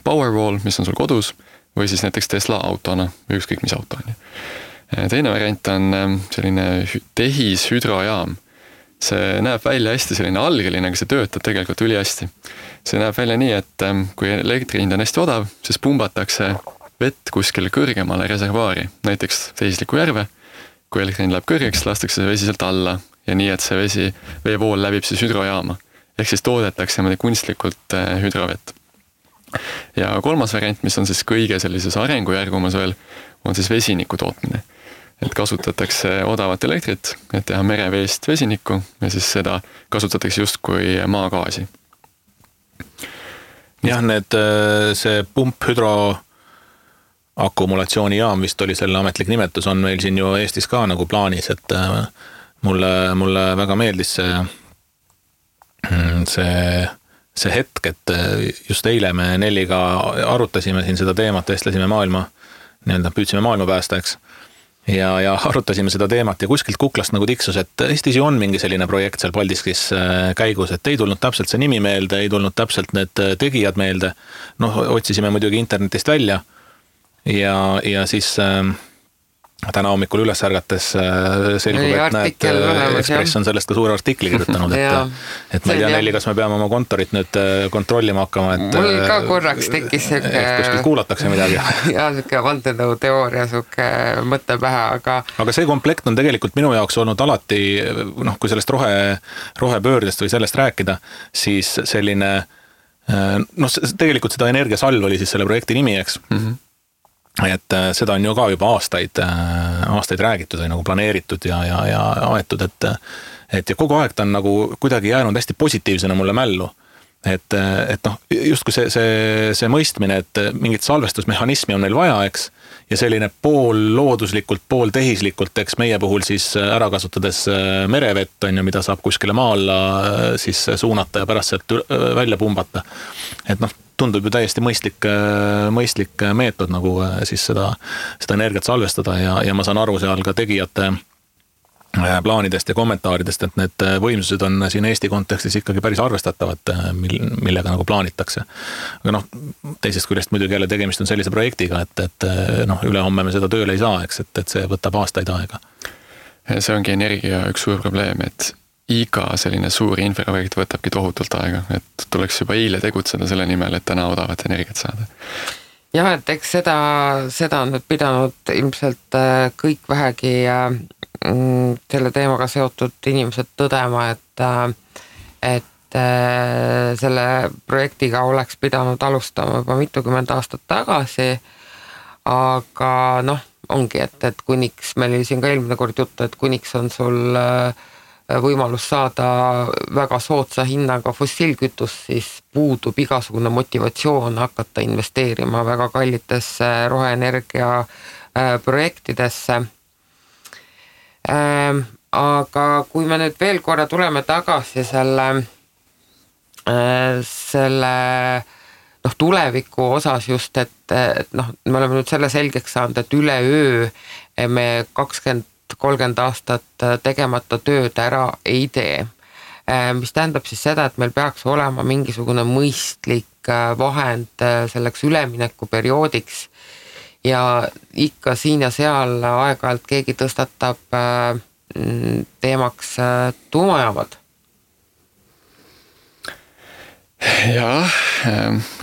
Powerwall, mis on sul kodus, või siis näiteks Tesla autona või ükskõik mis auto on. Teine variant on selline tehishüdrojaam. See näeb välja hästi selline algeline, aga see töötab tegelikult üli hästi. See näeb välja nii, et kui elektri hind on hästi odav, siis pumbatakse vett kuskile kõrgemale reservaari, näiteks Tehisliku järve. Kui elektri hind läheb kõrgeks, lastakse see vesi sealt alla ja nii, et see veevool läbib siis hüdrojaama. Ehk siis toodetakse kunstlikult hüdrovett. Ja 3. variant, mis on siis kõige sellises arengujärgumas veel, on siis vesiniku tootmine. Et kasutatakse odavat elektrit, et teha mereveest vesinikku ja siis seda kasutatakse just kui maagaasi. Jah, see pumphüdro akumulatsioonijaam vist oli selle ametlik nimetus, on meil siin ju Eestis ka nagu plaanis, et mulle väga meeldis see hetk, et just eile me Nelliga arutasime siin seda teemat, vestlesime püüdsime maailma päästa, eks. Ja arutasime seda teemat ja kuskilt kuklast nagu tiksus, et Eestis ju on mingi selline projekt seal Paldiskis käigus, et ei tulnud täpselt see nimi meelde, ei tulnud täpselt need tegijad meelde. Otsisime muidugi internetist välja ja siis täna hommikul üles ärgates selgub, et näed, Ekspress on sellest ka suure artikli kirjutanud, et ma ei tea, Nelli, kas me peame oma kontorit nüüd kontrollima hakkama, et mul ka korraks tekkis kuskil kuulatakse midagi. Ja siuke vandenõu teooria, siuke mõtte pähe, aga see komplekt on tegelikult minu jaoks olnud alati, kui sellest rohepöördest või sellest rääkida, siis selline, tegelikult seda energiasalv oli siis selle projekti nimi, eks. Et seda on ju ka juba aastaid räägitud või nagu planeeritud ja aetud, et ja kogu aeg ta on nagu kuidagi jäänud hästi positiivsena mulle mällu. Et justkui see mõistmine, et mingit salvestusmehhanismi on neil vaja, eks, ja selline pool looduslikult, pool tehislikult, eks meie puhul siis ära kasutades merevett, on ju, mida saab kuskile maa alla siis suunata ja pärast sealt välja pumbata. Et tundub ju täiesti mõistlik meetod nagu siis seda energiat salvestada ja ma saan aru seal ka tegijate plaanidest ja kommentaaridest, et need võimsused on siin Eesti kontekstis ikkagi päris arvestatavad, millega nagu plaanitakse. Aga teisest küljest muidugi jälle tegemist on sellise projektiga, et ülehomme me seda tööle ei saa, eks, et see võtab aastaid aega. See ongi energia üks suur probleem, et iga selline suur infraprojekt võtabki tohutult aega, et tuleks juba eile tegutseda selle nimel, et täna odavat energiat saada. Jah, et eks seda on nüüd pidanud ilmselt kõik vähegi selle teemaga seotud inimesed tõdema, et selle projektiga oleks pidanud alustama juba mitukümmend aastat tagasi, aga ongi, et kuniks, meil oli siin ka eelmine kord juttu, et kuniks on sul võimalus saada väga soodsa hinnaga fossiilkütus, siis puudub igasugune motivatsioon hakata investeerima väga kallitesse roheenergia projektidesse. Aga kui me nüüd veel korra tuleme tagasi selle selle tuleviku osas just, et me oleme nüüd selle selgeks saanud, et üleöö me 20-30 aastat tegemata tööd ära ei tee. Mis tähendab siis seda, et meil peaks olema mingisugune mõistlik vahend selleks üleminekuperioodiks ja ikka siin ja seal aeg-ajalt keegi tõstatab teemaks tuumajaamad. Jaa,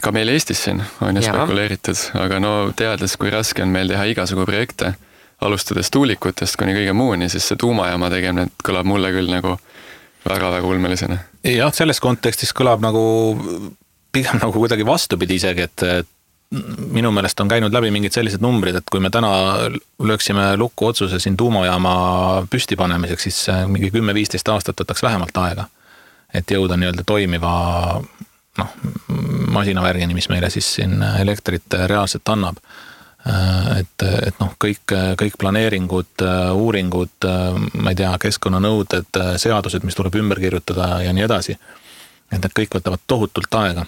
ka meil Eestis siin on ju spekuleeritud, aga teades, kui raske on meil teha igasugu projekte, alustades tuulikutest kuni kõige muuni, siis see tuumajaama tegemine kõlab mulle küll nagu väga-väga ulmelisena. Jah, selles kontekstis kõlab pigem kuidagi vastupidi isegi, et minu meelest on käinud läbi mingid sellised numbrid, et kui me täna lööksime lukku otsuse siin tuumajaama püsti panemiseks, siis mingi 10-15 aastat võtaks vähemalt aega, et jõuda nii-öelda toimiva masinavärgini, mis meile siis siin elektrit reaalselt annab. Et kõik planeeringud, uuringud, ma ei tea, keskkonnanõuded, seadused, mis tuleb ümber kirjutada ja nii edasi, et need kõik võtavad tohutult aega.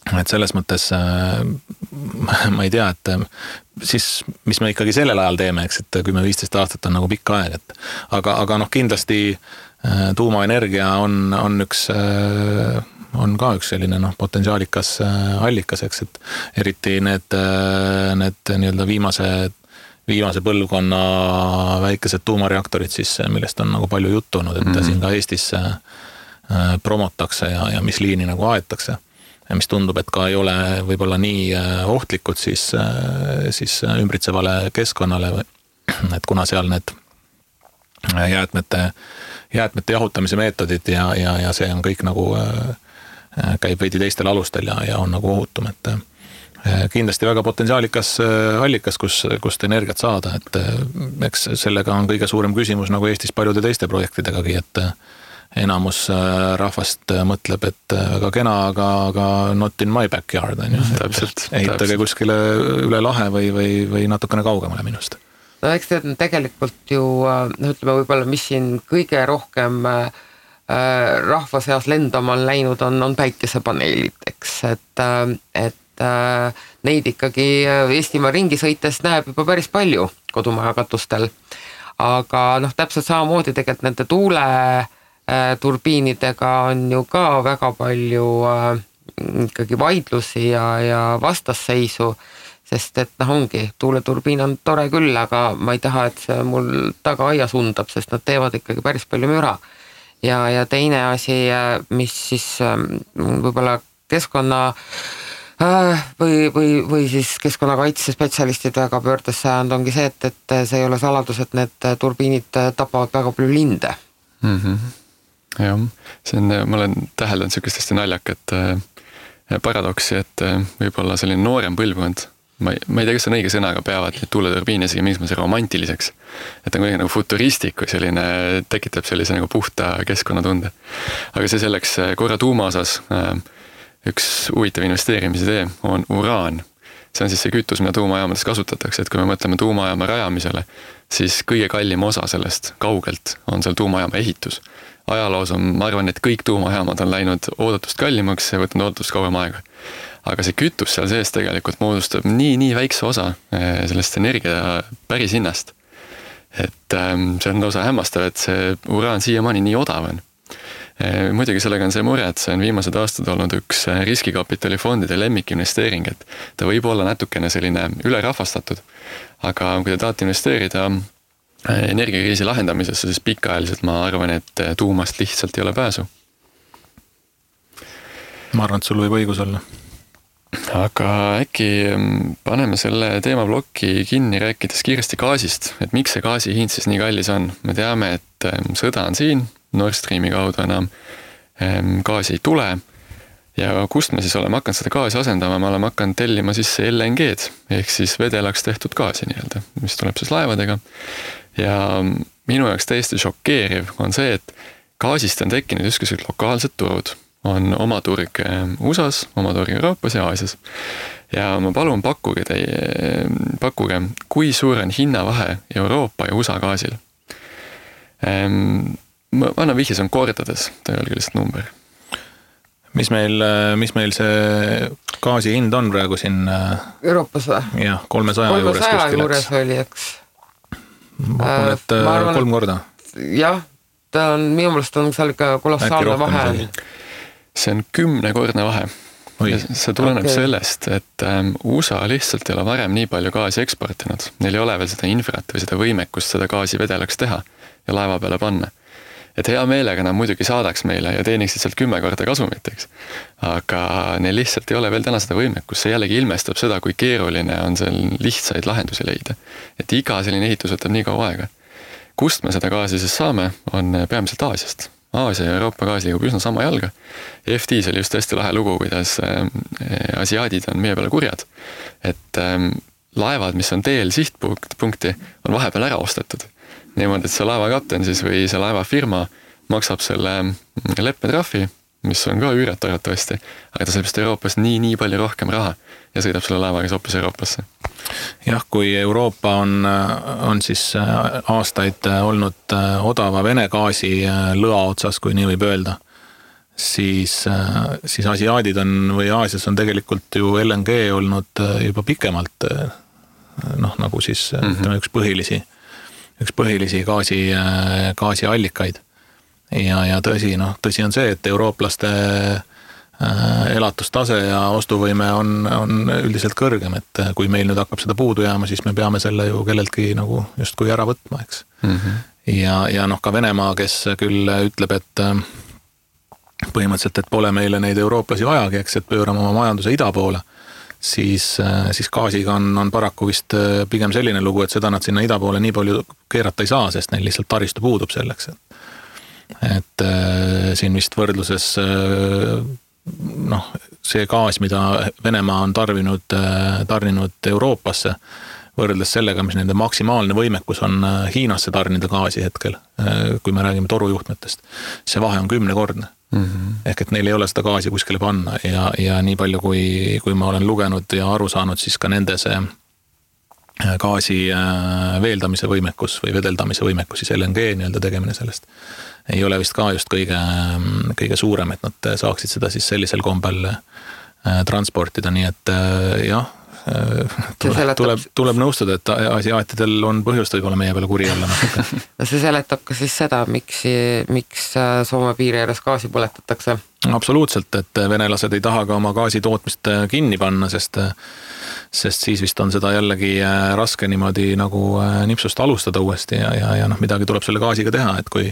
Et selles mõttes ma ei tea, et siis mis me ikkagi sellel ajal teeme, eks, et 10-15 aastat on pikk aeg, et aga kindlasti tuumaenergia on ka üks selline potentsiaalikas allikas, eks, et eriti need nii-öelda viimase põlvkonna väikesed tuumareaktorid siis, millest on palju juttu olnud, et siin ka Eestis promotakse ja mis liini aetakse. Ja mis tundub, et ka ei ole võib-olla nii ohtlikud siis ümbritsevale keskkonnale, et kuna seal need jäätmete jahutamise meetodid ja see on kõik käib veidi teistel alustel ja on ohutum, et kindlasti väga potentsiaalikas allikas, kust energiat saada, et eks sellega on kõige suurem küsimus Eestis paljude teiste projektidegagi, et enamus rahvast mõtleb, et väga kena, aga not in my backyard, on ju. Ehitage kuskile üle lahe või natukene kaugemale minust. No eks tegelikult ju, ütleme võib-olla, mis siin kõige rohkem rahva seas lendama on läinud, on päikesepaneelid, eks, et neid ikkagi Eestimaa ringi sõites näeb juba päris palju kodumaja katustel, aga täpselt samamoodi tegelikult nende tuuleturbiinidega on ju ka väga palju ikkagi vaidlusi ja vastasseisu, sest et ongi, tuuleturbiin on tore küll, aga ma ei taha, et see mul taga aias undab, sest nad teevad ikkagi päris palju müra. Ja teine asi, mis siis võib-olla keskkonna või siis keskkonnakaitse spetsialistid väga pöördes sajand ongi see, et see ei ole saladus, et need turbiinid tapavad väga palju linde. Jah, ma olen täheldanud sellist hästi naljakat paradoksi, et võib-olla selline noorem põlvkond, ma ei tea, kas see on õige sõna, aga peavad neid tuuleturbiine isegi mingisuguse romantiliseks. Et on kuidagi futuristik või selline, tekitab sellise puhta keskkonnatunde. Aga see selleks korra tuuma osas üks huvitav investeerimisidee on uraan. See on siis see kütus, mida tuumajaamades kasutatakse, et kui me mõtleme tuumajaama rajamisele, siis kõige kallim osa sellest kaugelt on seal tuumajaama ehitus. Ajaloos on, ma arvan, et kõik tuumajaamad on läinud oodatust kallimaks ja võtnud oodatust kauem aega. Aga see kütus seal sees tegelikult moodustab nii väikse osa sellest energia päris hinnast. Et see on osa hämmastav, et see uraan siiamaani nii odav on. Muidugi sellega on see mure, et see on viimased aastad olnud üks riskikapitalifondide lemmikinvesteering, et ta võib olla natukene selline ülerahvastatud, aga kui te tahate investeerida energiakriisi lahendamisesse, siis pikaajaliselt ma arvan, et tuumast lihtsalt ei ole pääsu. Ma arvan, et sul võib õigus olla. Aga äkki paneme selle teemablokki kinni rääkides kiiresti gaasist, et miks see gaasi hind siis nii kallis on. Me teame, et sõda on siin, Nord Streami kaudu enam gaasi ei tule ja kust me siis oleme hakanud seda gaasi asendama, me oleme hakanud tellima siis LNG-d ehk siis vedelaks tehtud gaasi nii-öelda, mis tuleb siis laevadega ja minu jaoks täiesti šokeeriv on see, et gaasist on tekkinud justkui lokaalsed turud. On oma turg USAs, oma turg Euroopas ja Aasias. Ja ma palun pakkuge, kui suur on hinnavahe Euroopa ja USA gaasil. Ma annan vihje, see on kordades, ta ei ole lihtsalt number. mis meil see gaasi hind on praegu siin? Euroopas või? Jah, 300 juures kuskil. 300 juures oli, eks. Ma arvan, et 3 korda. Jah, ta on, minu meelest on seal ikka kolossaalne vahe. See on 10-kordne vahe. See tuleneb sellest, et USA lihtsalt ei ole varem nii palju gaasi eksportinud. Neil ei ole veel seda infrat või seda võimekust seda gaasi vedelaks teha ja laeva peale panna. Et hea meelega nad muidugi saadaks meile ja teeniksid sealt 10 korda kasumit, eks. Aga neil lihtsalt ei ole veel täna seda võimekust. See jällegi ilmestab seda, kui keeruline on seal lihtsaid lahendusi leida. Et iga selline ehitus võtab nii kaua aega. Kust me seda gaasi siis saame, on peamiselt Aasiast. Aasia ja Euroopa gaas liigub üsna sama jalga. FT-s oli just hästi lahe lugu, kuidas asiaadid on meie peale kurjad. Et laevad, mis on teel sihtpunkti, on vahepeal ära ostetud. Niimoodi, et see laevakapten siis või see laevafirma maksab selle leppetrahvi, mis on ka üürat arvatavasti, aga ta saab just Euroopas nii palju rohkem raha ja sõidab selle laevaga hoopis Euroopasse. Jah, kui Euroopa on siis aastaid olnud odava Vene gaasi lõa otsas, kui nii võib öelda, siis asiaadid on või Aasias on tegelikult ju LNG olnud juba pikemalt nagu siis üks põhilisi gaasiallikaid. Ja tõsi on see, et eurooplaste elatustase ja ostuvõime on üldiselt kõrgem, et kui meil nüüd hakkab seda puudu jääma, siis me peame selle ju kelleltki nagu justkui ära võtma, eks. Ja ka Venemaa, kes küll ütleb, et põhimõtteliselt, et pole meile neid eurooplasi vajagi, eks, et pöörame oma majanduse ida poole, siis gaasiga on paraku vist pigem selline lugu, et seda nad sinna ida poole nii palju keerata ei saa, sest neil lihtsalt taristu puudub selleks. Et siin vist võrdluses see gaas, mida Venemaa on tarninud Euroopasse, võrreldes sellega, mis nende maksimaalne võimekus on Hiinasse tarnida gaasi hetkel, kui me räägime torujuhtmetest, see vahe on 10-kordne. Ehk et neil ei ole seda gaasi kuskile panna ja nii palju, kui ma olen lugenud ja aru saanud, siis ka nende see gaasi veeldamise võimekus või vedeldamise võimekus, siis LNG nii-öelda tegemine sellest ei ole vist ka just kõige suurem, et nad saaksid seda siis sellisel kombel transportida, nii et jah, tuleb nõustuda, et asiaatidel on põhjust võib-olla meie peale kuri olla. See seletab ka siis seda, miks Soome piiri ääres gaasi põletatakse? Absoluutselt, et venelased ei taha ka oma gaasi tootmist kinni panna, sest siis vist on seda jällegi raske niimoodi nagu nipsust alustada uuesti ja midagi tuleb selle gaasiga teha, et kui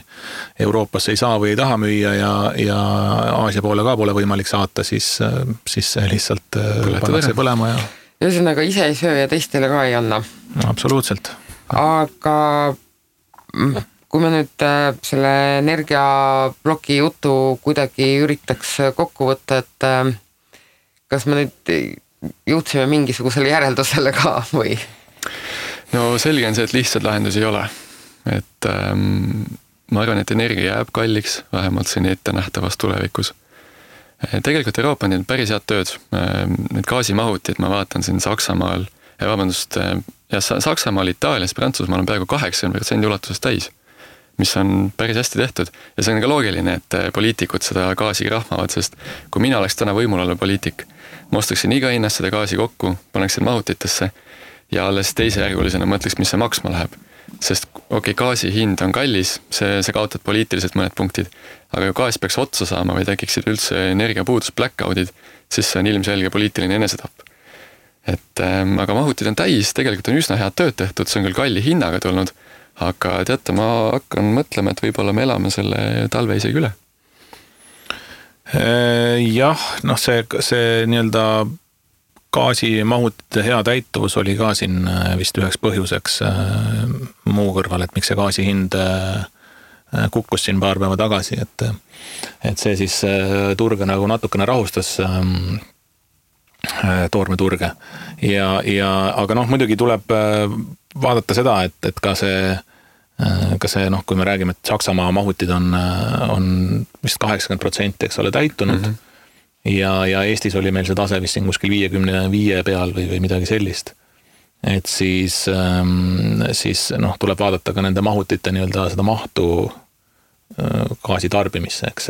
Euroopasse ei saa või ei taha müüa ja Aasia poole ka pole võimalik saata, siis see lihtsalt pannakse põlema ja ühesõnaga ise ei söö ja teistele ka ei anna. Absoluutselt. Aga kui me nüüd selle energiabloki jutu kuidagi üritaks kokku võtta, et kas me nüüd jõudsime mingisugusele järeldusele ka või? No selge on see, et lihtsalt lahendusi ei ole. Et ma arvan, et energia jääb kalliks, vähemalt siin ette nähtavas tulevikus. Tegelikult Euroopa on teinud päris head tööd. Need gaasimahutid, ma vaatan siin Saksamaal, Saksamaal, Itaalias, Prantsusmaal on peaaegu 80% ulatuses täis, mis on päris hästi tehtud. Ja see on ka loogiline, et poliitikud seda gaasi rahmavad, sest kui mina oleks täna võimul olla poliitik, ma ostaksin iga hinnast seda gaasi kokku, paneksin mahutitesse ja alles teisejärgulisena mõtleks, mis see maksma läheb. Sest gaasi hind on kallis, see kaotad poliitiliselt mõned punktid, aga kui gaas peaks otsa saama või tekiksid üldse energiapuudus blackoutid, siis see on ilmselge poliitiline enesetapp. Aga mahutid on täis, tegelikult on üsna head tööd tehtud, see on küll kalli hinnaga tulnud, aga teate, ma hakkan mõtlema, et võib-olla me elame selle talve isegi üle. Jah, see nii-öelda gaasimahutite hea täituvus oli ka siin vist üheks põhjuseks muu kõrval, et miks see gaasi hind kukkus siin paar päeva tagasi, et see siis turge nagu natukene rahustas toormeturge aga muidugi tuleb vaadata seda, et ka see kui me räägime, et Saksamaa mahutid on vist 80%, eks ole, täitunud ja Eestis oli meil see tase vist siin kuskil 55 peal või midagi sellist. Et siis tuleb vaadata ka nende mahutite nii-öelda seda mahtu gaasi tarbimisse, eks,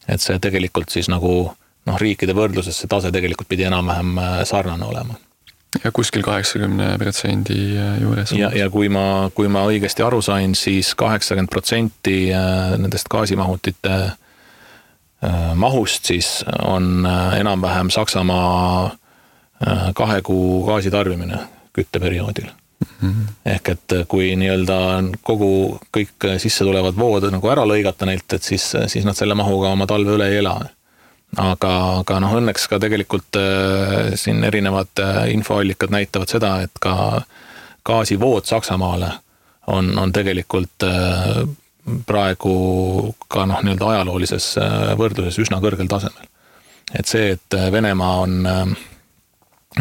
et see tegelikult siis nagu riikide võrdluses see tase tegelikult pidi enam-vähem sarnane olema. Ja kuskil 80% juures. Ja kui ma õigesti aru sain, siis 80% nendest gaasimahutite mahust siis on enam-vähem Saksamaa 2 kuu gaasitarbimine kütteperioodil. Ehk et kui nii-öelda kõik sisse tulevad vood nagu ära lõigata neilt, et siis nad selle mahuga oma talve üle ei ela. Aga õnneks ka tegelikult siin erinevad infoallikad näitavad seda, et ka gaasivood Saksamaale on tegelikult praegu ka nii-öelda ajaloolises võrdluses üsna kõrgel tasemel. Et see, et Venemaa on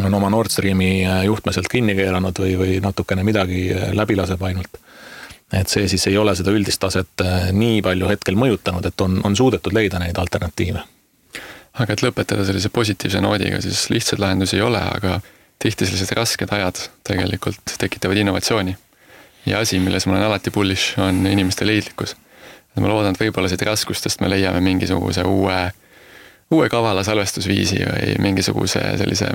oma Nord Streami juhtmeselt kinni keeranud või natukene midagi läbi laseb ainult. Et see siis ei ole seda üldist taset nii palju hetkel mõjutanud, et on suudetud leida neid alternatiive. Aga et lõpetada sellise positiivse noodiga, siis lihtsalt lahendusi ei ole, aga tihti sellised rasked ajad tegelikult tekitavad innovatsiooni. Ja asi, milles ma olen alati bullish, on inimeste leidlikkus. Ma loodan, et võib-olla siit raskustest me leiame mingisuguse uue kavala salvestusviisi või mingisuguse sellise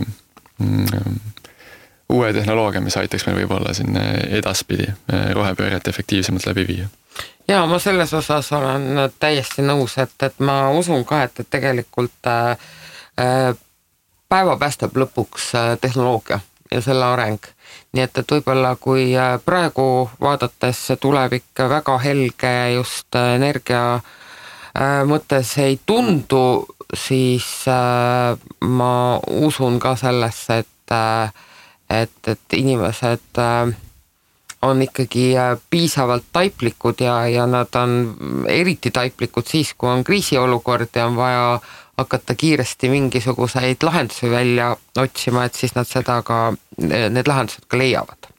uue tehnoloogia, mis aitaks meil võib-olla siin edaspidi rohepööret efektiivsemalt läbi viia. Ja ma selles osas olen täiesti nõus, et ma usun ka, et tegelikult päeva päästab lõpuks tehnoloogia ja selle areng. Nii et võib-olla kui praegu vaadates tulevik väga helge just energia mõttes ei tundu, siis ma usun ka sellesse, et inimesed on ikkagi piisavalt taiplikud ja nad on eriti taiplikud siis, kui on kriisiolukord ja on vaja hakata kiiresti mingisuguseid lahendusi välja otsima, et siis nad need lahendused ka leiavad.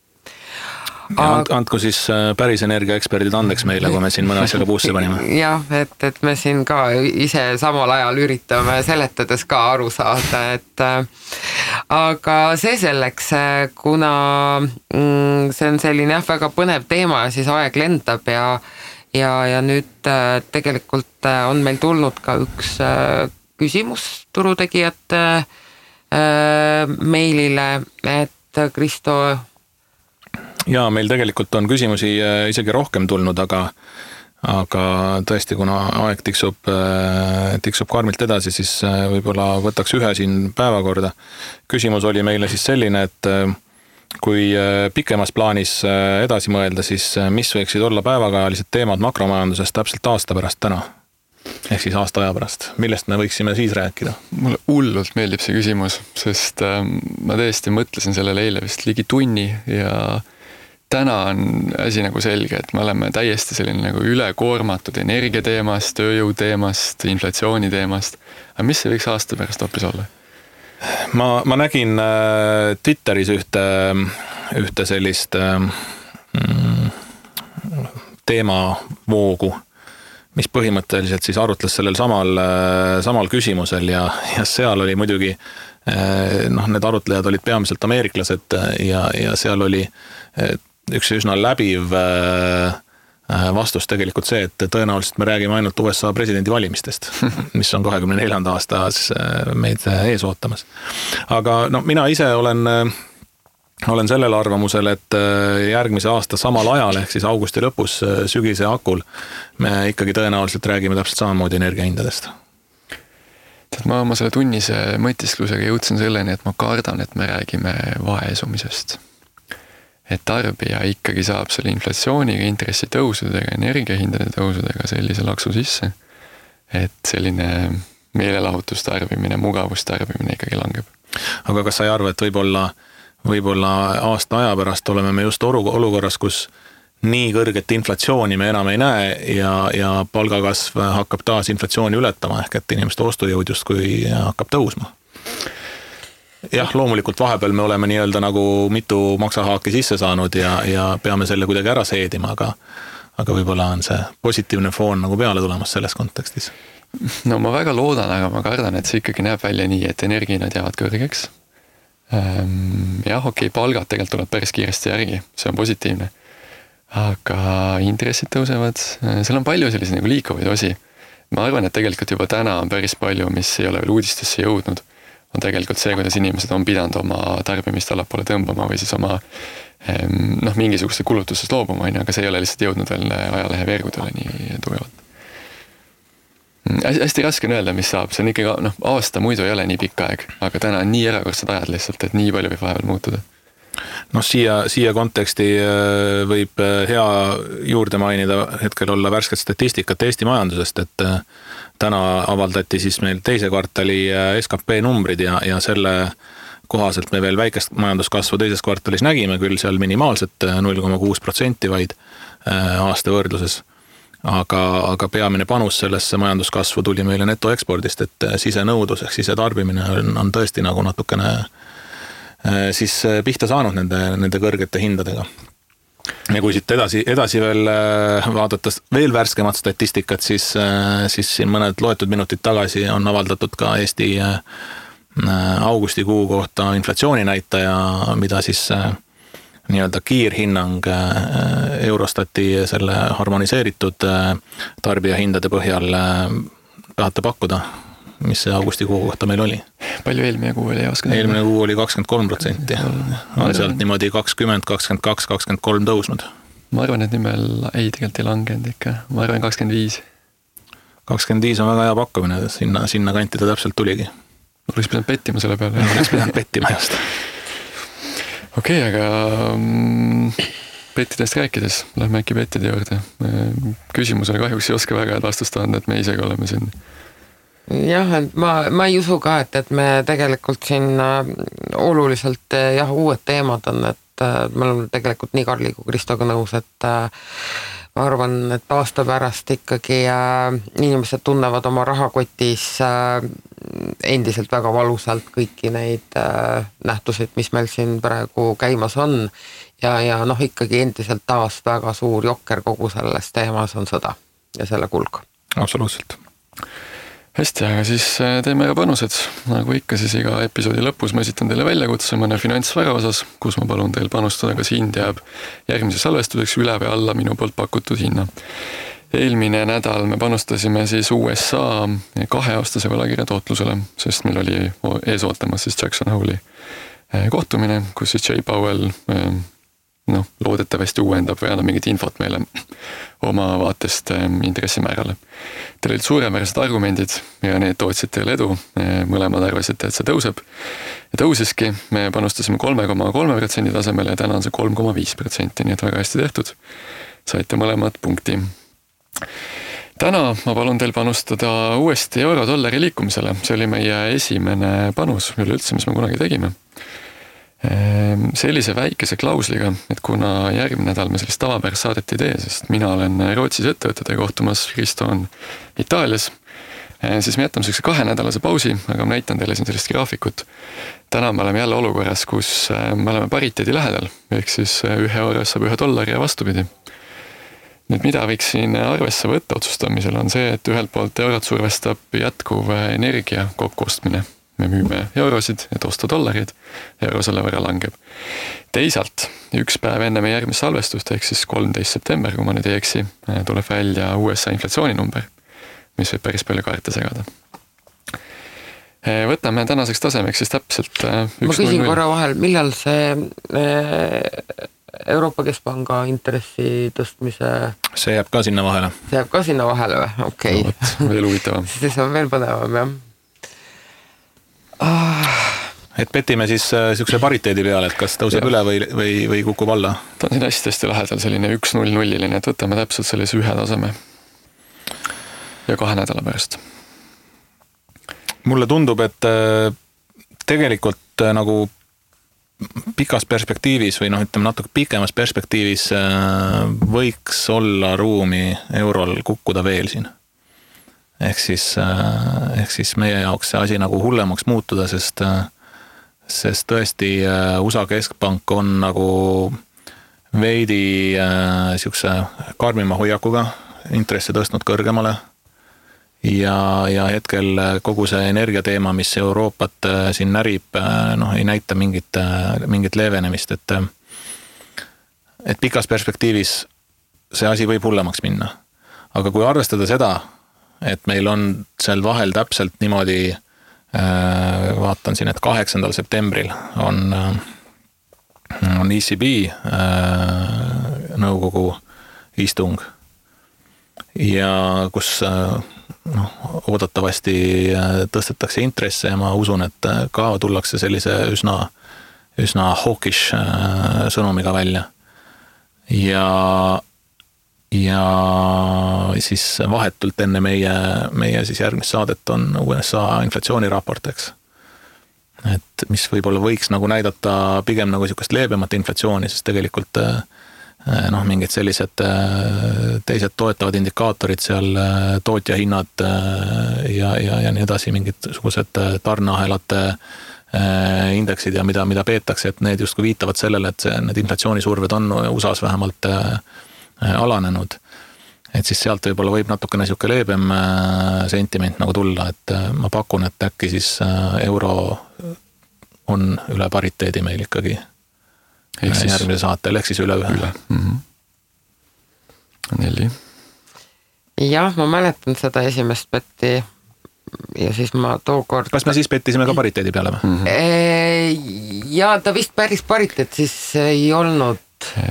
Andku siis päris energiaeksperdid andeks meile, kui me siin mõne asjaga puusse panime. Jah, et me siin ka ise samal ajal üritame seletades ka aru saada, aga see selleks, kuna see on selline väga põnev teema ja siis aeg lendab ja nüüd tegelikult on meil tulnud ka üks küsimus turutegijate meilile, et Kristo... Ja meil tegelikult on küsimusi isegi rohkem tulnud, aga tõesti, kuna aeg tiksub karmilt edasi, siis võib-olla võtaks ühe siin päevakorda. Küsimus oli meile siis selline, et kui pikemas plaanis edasi mõelda, siis mis võiksid olla päevakajalised teemad makromajanduses täpselt aasta pärast täna? Ehk siis aasta aja pärast. Millest me võiksime siis rääkida? Mulle hullult meeldib see küsimus, sest ma tõesti mõtlesin sellele eile vist ligi tunni ja täna on asi nagu selge, et me oleme täiesti selline nagu ülekoormatud energiateemast, tööjõuteemast, inflatsiooniteemast. Aga mis see võiks aasta pärast hoopis olla? Ma nägin Twitteris ühte sellist teemavoogu, mis põhimõtteliselt siis arutles sellel samal küsimusel ja seal oli muidugi need arutlejad olid peamiselt ameeriklased ja seal oli üks üsna läbiv vastus tegelikult see, et tõenäoliselt me räägime ainult USA presidendi valimistest, mis on 24. aastas meid ees ootamas. Aga mina ise olen sellel arvamusel, et järgmise aasta samal ajal, ehk siis augusti lõpus sügise akul, me ikkagi tõenäoliselt räägime täpselt samamoodi energiahindadest. Ma oma selle tunnise mõtisklusega jõudsin selleni, et ma kardan, et me räägime vaesumisest. Et tarbija ikkagi saab selle inflatsiooniga, intressitõusudega, energiahindade tõusudega sellise laksu sisse, et selline meelelahutustarbimine, mugavustarbimine ikkagi langeb. Aga kas sa ei arva, et võib-olla aasta aja pärast oleme me just olukorras, kus nii kõrget inflatsiooni me enam ei näe ja palgakasv hakkab taas inflatsiooni ületama, ehk et inimeste ostujõud justkui hakkab tõusma? Jah, loomulikult vahepeal me oleme nii-öelda nagu mitu maksahaaki sisse saanud ja peame selle kuidagi ära seedima, aga võib-olla on see positiivne foon nagu peale tulemas selles kontekstis. No ma väga loodan, aga ma kardan, et see ikkagi näeb välja nii, et energiinad jäävad kõrgeks. Jah, okei, palgad tegelikult tuleb päris kiiresti järgi, see on positiivne. Aga intressid tõusevad, seal on palju sellise nagu liikuvaid osi. ma arvan, et tegelikult juba täna on päris palju, mis ei ole veel uudistesse jõudnud, on tegelikult see, kuidas inimesed on pidanud oma tarbimist allapoole tõmbama või siis oma mingisuguste kulutusest loobuma, aga see ei ole lihtsalt jõudnud veel ajalehe veergudele nii tugevalt. Hästi raske on öelda, mis saab, see on ikkagi, aasta muidu ei ole nii pikk aeg, aga täna on nii erakordsed ajad lihtsalt, et nii palju võib vahepeal muutuda. Siia konteksti võib hea juurde mainida hetkel olla värsket statistikat Eesti majandusest, et täna avaldati siis meil teise kvartali SKP numbrid ja selle kohaselt me veel väikest majanduskasvu teises kvartalis nägime, küll seal minimaalselt 0,6% vaid aasta võrdluses. Aga peamine panus sellesse majanduskasvu tuli meile netoekspordist, et sisenõudlus ehk sisetarbimine on tõesti nagu natukene siis pihta saanud nende kõrgete hindadega. Ja kui siit edasi veel vaadates veel värskemat statistikat, siis siin mõned loetud minutid tagasi on avaldatud ka Eesti augustikuu kohta inflatsiooninäitaja, mida siis nii-öelda kiirhinnang Eurostati selle harmoniseeritud tarbijahindade põhjal tahate pakkuda, mis see augustikuu kohta meil oli? Palju eelmine kuu oli? Eelmine kuu oli 23%. On sealt niimoodi 20, 22, 23 tõusnud. Ma arvan, et nimel tegelikult ei langenud ikka. Ma arvan 25. 25 on väga hea pakkumine, sinna kanti ta täpselt tuligi. Oleks pidanud pettima selle peale. Oleks pidanud pettima just. Okei, aga pettidest rääkides, lähme äkki pettide juurde. Küsimusele kahjuks ei oska väga head vastust anda, et me isegi oleme siin. Jah, et ma ei usu ka, et me tegelikult siin oluliselt uued teemad on, et me oleme tegelikult nii Karli kui Kristoga nõus, et ma arvan, et aasta pärast ikkagi inimesed tunnevad oma rahakotis endiselt väga valusalt kõiki neid nähtusid, mis meil siin praegu käimas on ja ikkagi endiselt taas väga suur jokker kogu selles teemas on sõda ja selle kulg. Absoluutselt. Hästi, aga siis teeme ka panused. Nagu ikka, siis iga episoodi lõpus ma esitan teile väljakutse mõne finantsvara osas, kus ma palun teil panustada, kas hind jääb järgmise salvestuseks üle või alla minu poolt pakutud hinna. Eelmine nädal me panustasime siis USA 2-aastase võlakirja tootlusele, sest meil oli ees ootamas siis Jackson Hole'i kohtumine, kus siis Jay Powell loodetavasti uuendab või annab mingit infot meile oma vaatest intressimäärale. Teil olid suuremäärsed argumendid ja need tootsid teile edu. Mõlemad arvasite, et see tõuseb. Ja tõusiski, me panustasime 3,3% tasemele ja täna on see 3,5%, nii et väga hästi tehtud. Saite mõlemad punkti. Täna ma palun teil panustada uuesti euro-dollari liikumisele. See oli meie esimene panus üleüldse, mis me kunagi tegime. Sellise väikese klausliga, et kuna järgmine nädal me sellist tavapärast saadet ei tee, sest mina olen Rootsis ettevõtete kohtumas, Kristo on Itaalias, siis me jätame sellise 2-nädalase pausi, aga ma näitan teile siin sellist graafikut. Täna me oleme jälle olukorras, kus me oleme pariteedi lähedal, ehk siis 1 euro saab $1 ja vastupidi. Nüüd mida võiks siin arvesse võtta otsustamisel on see, et ühelt poolt eurot survestab jätkuv energia kokkuostmine. Me müüme eurosid, et osta dollarid, euro selle võrra langeb. Teisalt, üks päev enne meie järgmist salvestust, ehk siis 13. september, kui ma nüüd ei eksi, tuleb välja USA inflatsiooninumber, mis võib päris palju kaarte segada. Võtame tänaseks tasemeks siis täpselt 1,0. Ma küsin korra vahel, millal see Euroopa Keskpanga intressi tõstmise... See jääb ka sinna vahele. See jääb ka sinna vahele või? Okei. No, veel huvitavam. See on veel põnevam, jah. Et petime siis niisuguse pariteedi peale, et kas tõuseb üle või kukub alla? Ta on siin hästi lähedal selline 1-0-0-line, et võtame täpselt sellise 1 taseme ja 2 nädala pärast. Mulle tundub, et tegelikult nagu pikas perspektiivis või ütleme natuke pikemas perspektiivis võiks olla ruumi eurol kukkuda veel siin. Ehk siis meie jaoks see asi nagu hullemaks muutuda, sest tõesti USA Keskpank on nagu veidi siukse karmima hoiakuga intressi tõstnud kõrgemale ja hetkel kogu see energiateema, mis Euroopat siin närib, ei näita mingit leevenemist, et pikas perspektiivis see asi võib hullemaks minna. Aga kui arvestada seda, et meil on seal vahel täpselt niimoodi, vaatan siin, et 8. septembril on ECB nõukogu istung ja kus oodatavasti tõstetakse intresse ja ma usun, et ka tullakse sellise üsna hawkish sõnumiga välja. Ja siis vahetult enne meie siis järgmist saadet on USA inflatsiooniraport, eks. Et mis võib-olla võiks nagu näidata pigem nagu niisugust leebemat inflatsiooni, sest tegelikult mingid sellised teised toetavad indikaatorid seal, tootjahinnad ja nii edasi, mingid sugused tarneahelate indeksid ja mida peetakse, et need justkui viitavad sellele, et need inflatsioonisurved on USAs vähemalt alanenud. Et siis sealt võib-olla võib natukene niisugune leebem sentiment nagu tulla, et ma pakun, et äkki siis euro on üle pariteedi meil ikkagi järgmise saatel, ehk siis üle 1. 4. Jah, ma mäletan seda esimest betti ja siis ma tookord... Kas me siis bettisime ka pariteedi peale või? Ja ta vist päris pariteed siis ei olnud.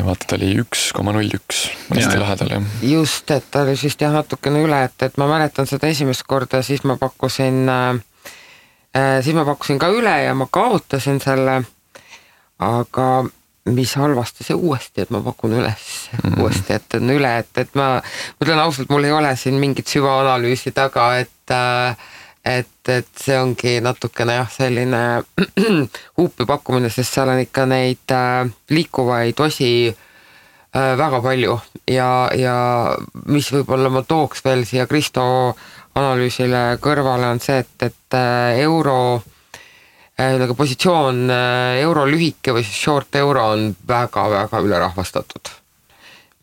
Vaata, ta oli 1,01 hästi lähedal. Just, et ta oli siis natukene üle, et ma mäletan seda esimest korda, siis ma pakkusin ka üle ja ma kaotasin selle, aga mis halvasti see uuesti, et ma pakun uuesti, et on üle, et ma mõtlen ausalt, mul ei ole siin mingit süvaanalüüsi taga, et see ongi natukene selline huupi pakkumine, sest seal on ikka neid liikuvaid osi väga palju ja mis võib-olla ma tooks veel siia Kristo analüüsile kõrvale on see, et euro positsioon euro lühike või short euro on väga-väga ülerahvastatud.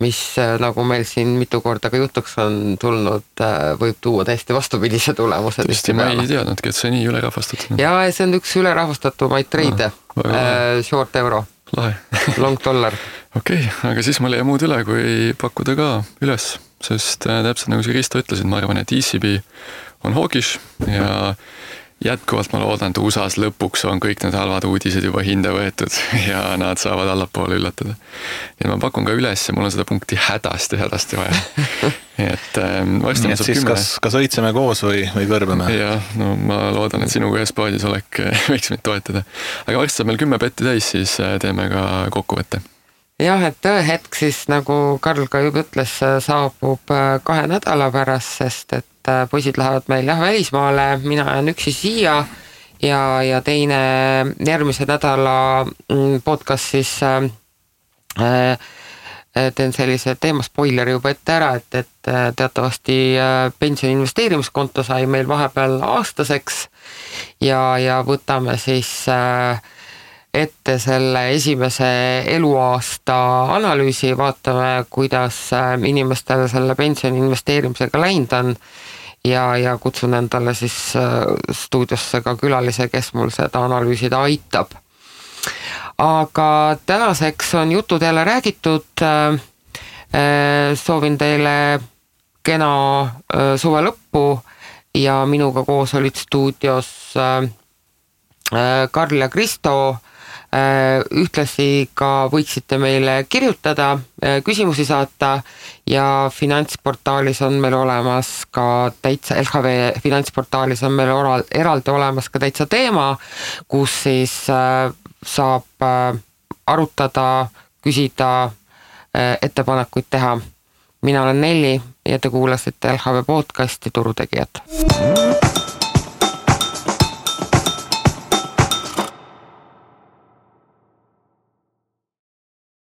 Mis nagu meil siin mitu korda ka jutuks on tulnud, võib tuua täiesti vastupidise tulemuse. Tõesti, ma ei teadnudki, et see nii ülerahvastatud. Ja see on üks ülerahvastatumaid treide, short euro, lahe. Long dollar. Okei, aga siis mul jäi muud üle, kui pakkuda ka üles, sest täpselt nagu see Kristo ütlesid, ma arvan, et ECB on hawkish ja jätkuvalt ma loodan, et USAs lõpuks on kõik need halvad uudised juba hinde võetud ja nad saavad allapoole üllatada. Ja ma pakun ka üles ja mul on seda punkti hädasti vaja. Et varsti nii, et siis kas õitseme koos või kõrbeme? Ja, no ma loodan, et sinuga ühes paadis võiks meid toetada. Aga varsti saab meil 10 betti täis, siis teeme ka kokkuvõtte. Jah, et tõehetk siis, nagu Karl ka juba ütles, saabub 2 nädala pärast, sest et poisid lähevad meil välismaale, mina jään üksi siia ja teine järgmise nädala podcast siis teen sellise teema spoileri juba ette ära, et teatavasti pensioni investeerimiskonto sai meil vahepeal aastaseks ja võtame siis ette selle esimese eluaasta analüüsi, vaatame, kuidas inimestel selle pensioni investeerimisega läinud on ja kutsun endale siis stuudiosse ka külalise, kes mul seda analüüsida aitab. Aga tänaseks on jutud jälle räägitud. Soovin teile kena suve lõppu ja minuga koos olid stuudios Karl ja Kristo. Ühtlasi ka võiksite meile kirjutada, küsimusi saata ja finantsportaalis on meil olemas ka täitsa, LHV finantsportaalis on meil eraldi olemas ka täitsa teema, kus siis saab arutada, küsida, ettepanekuid teha. Mina olen Nelli ja te kuulasite LHV podcasti Turutegijad.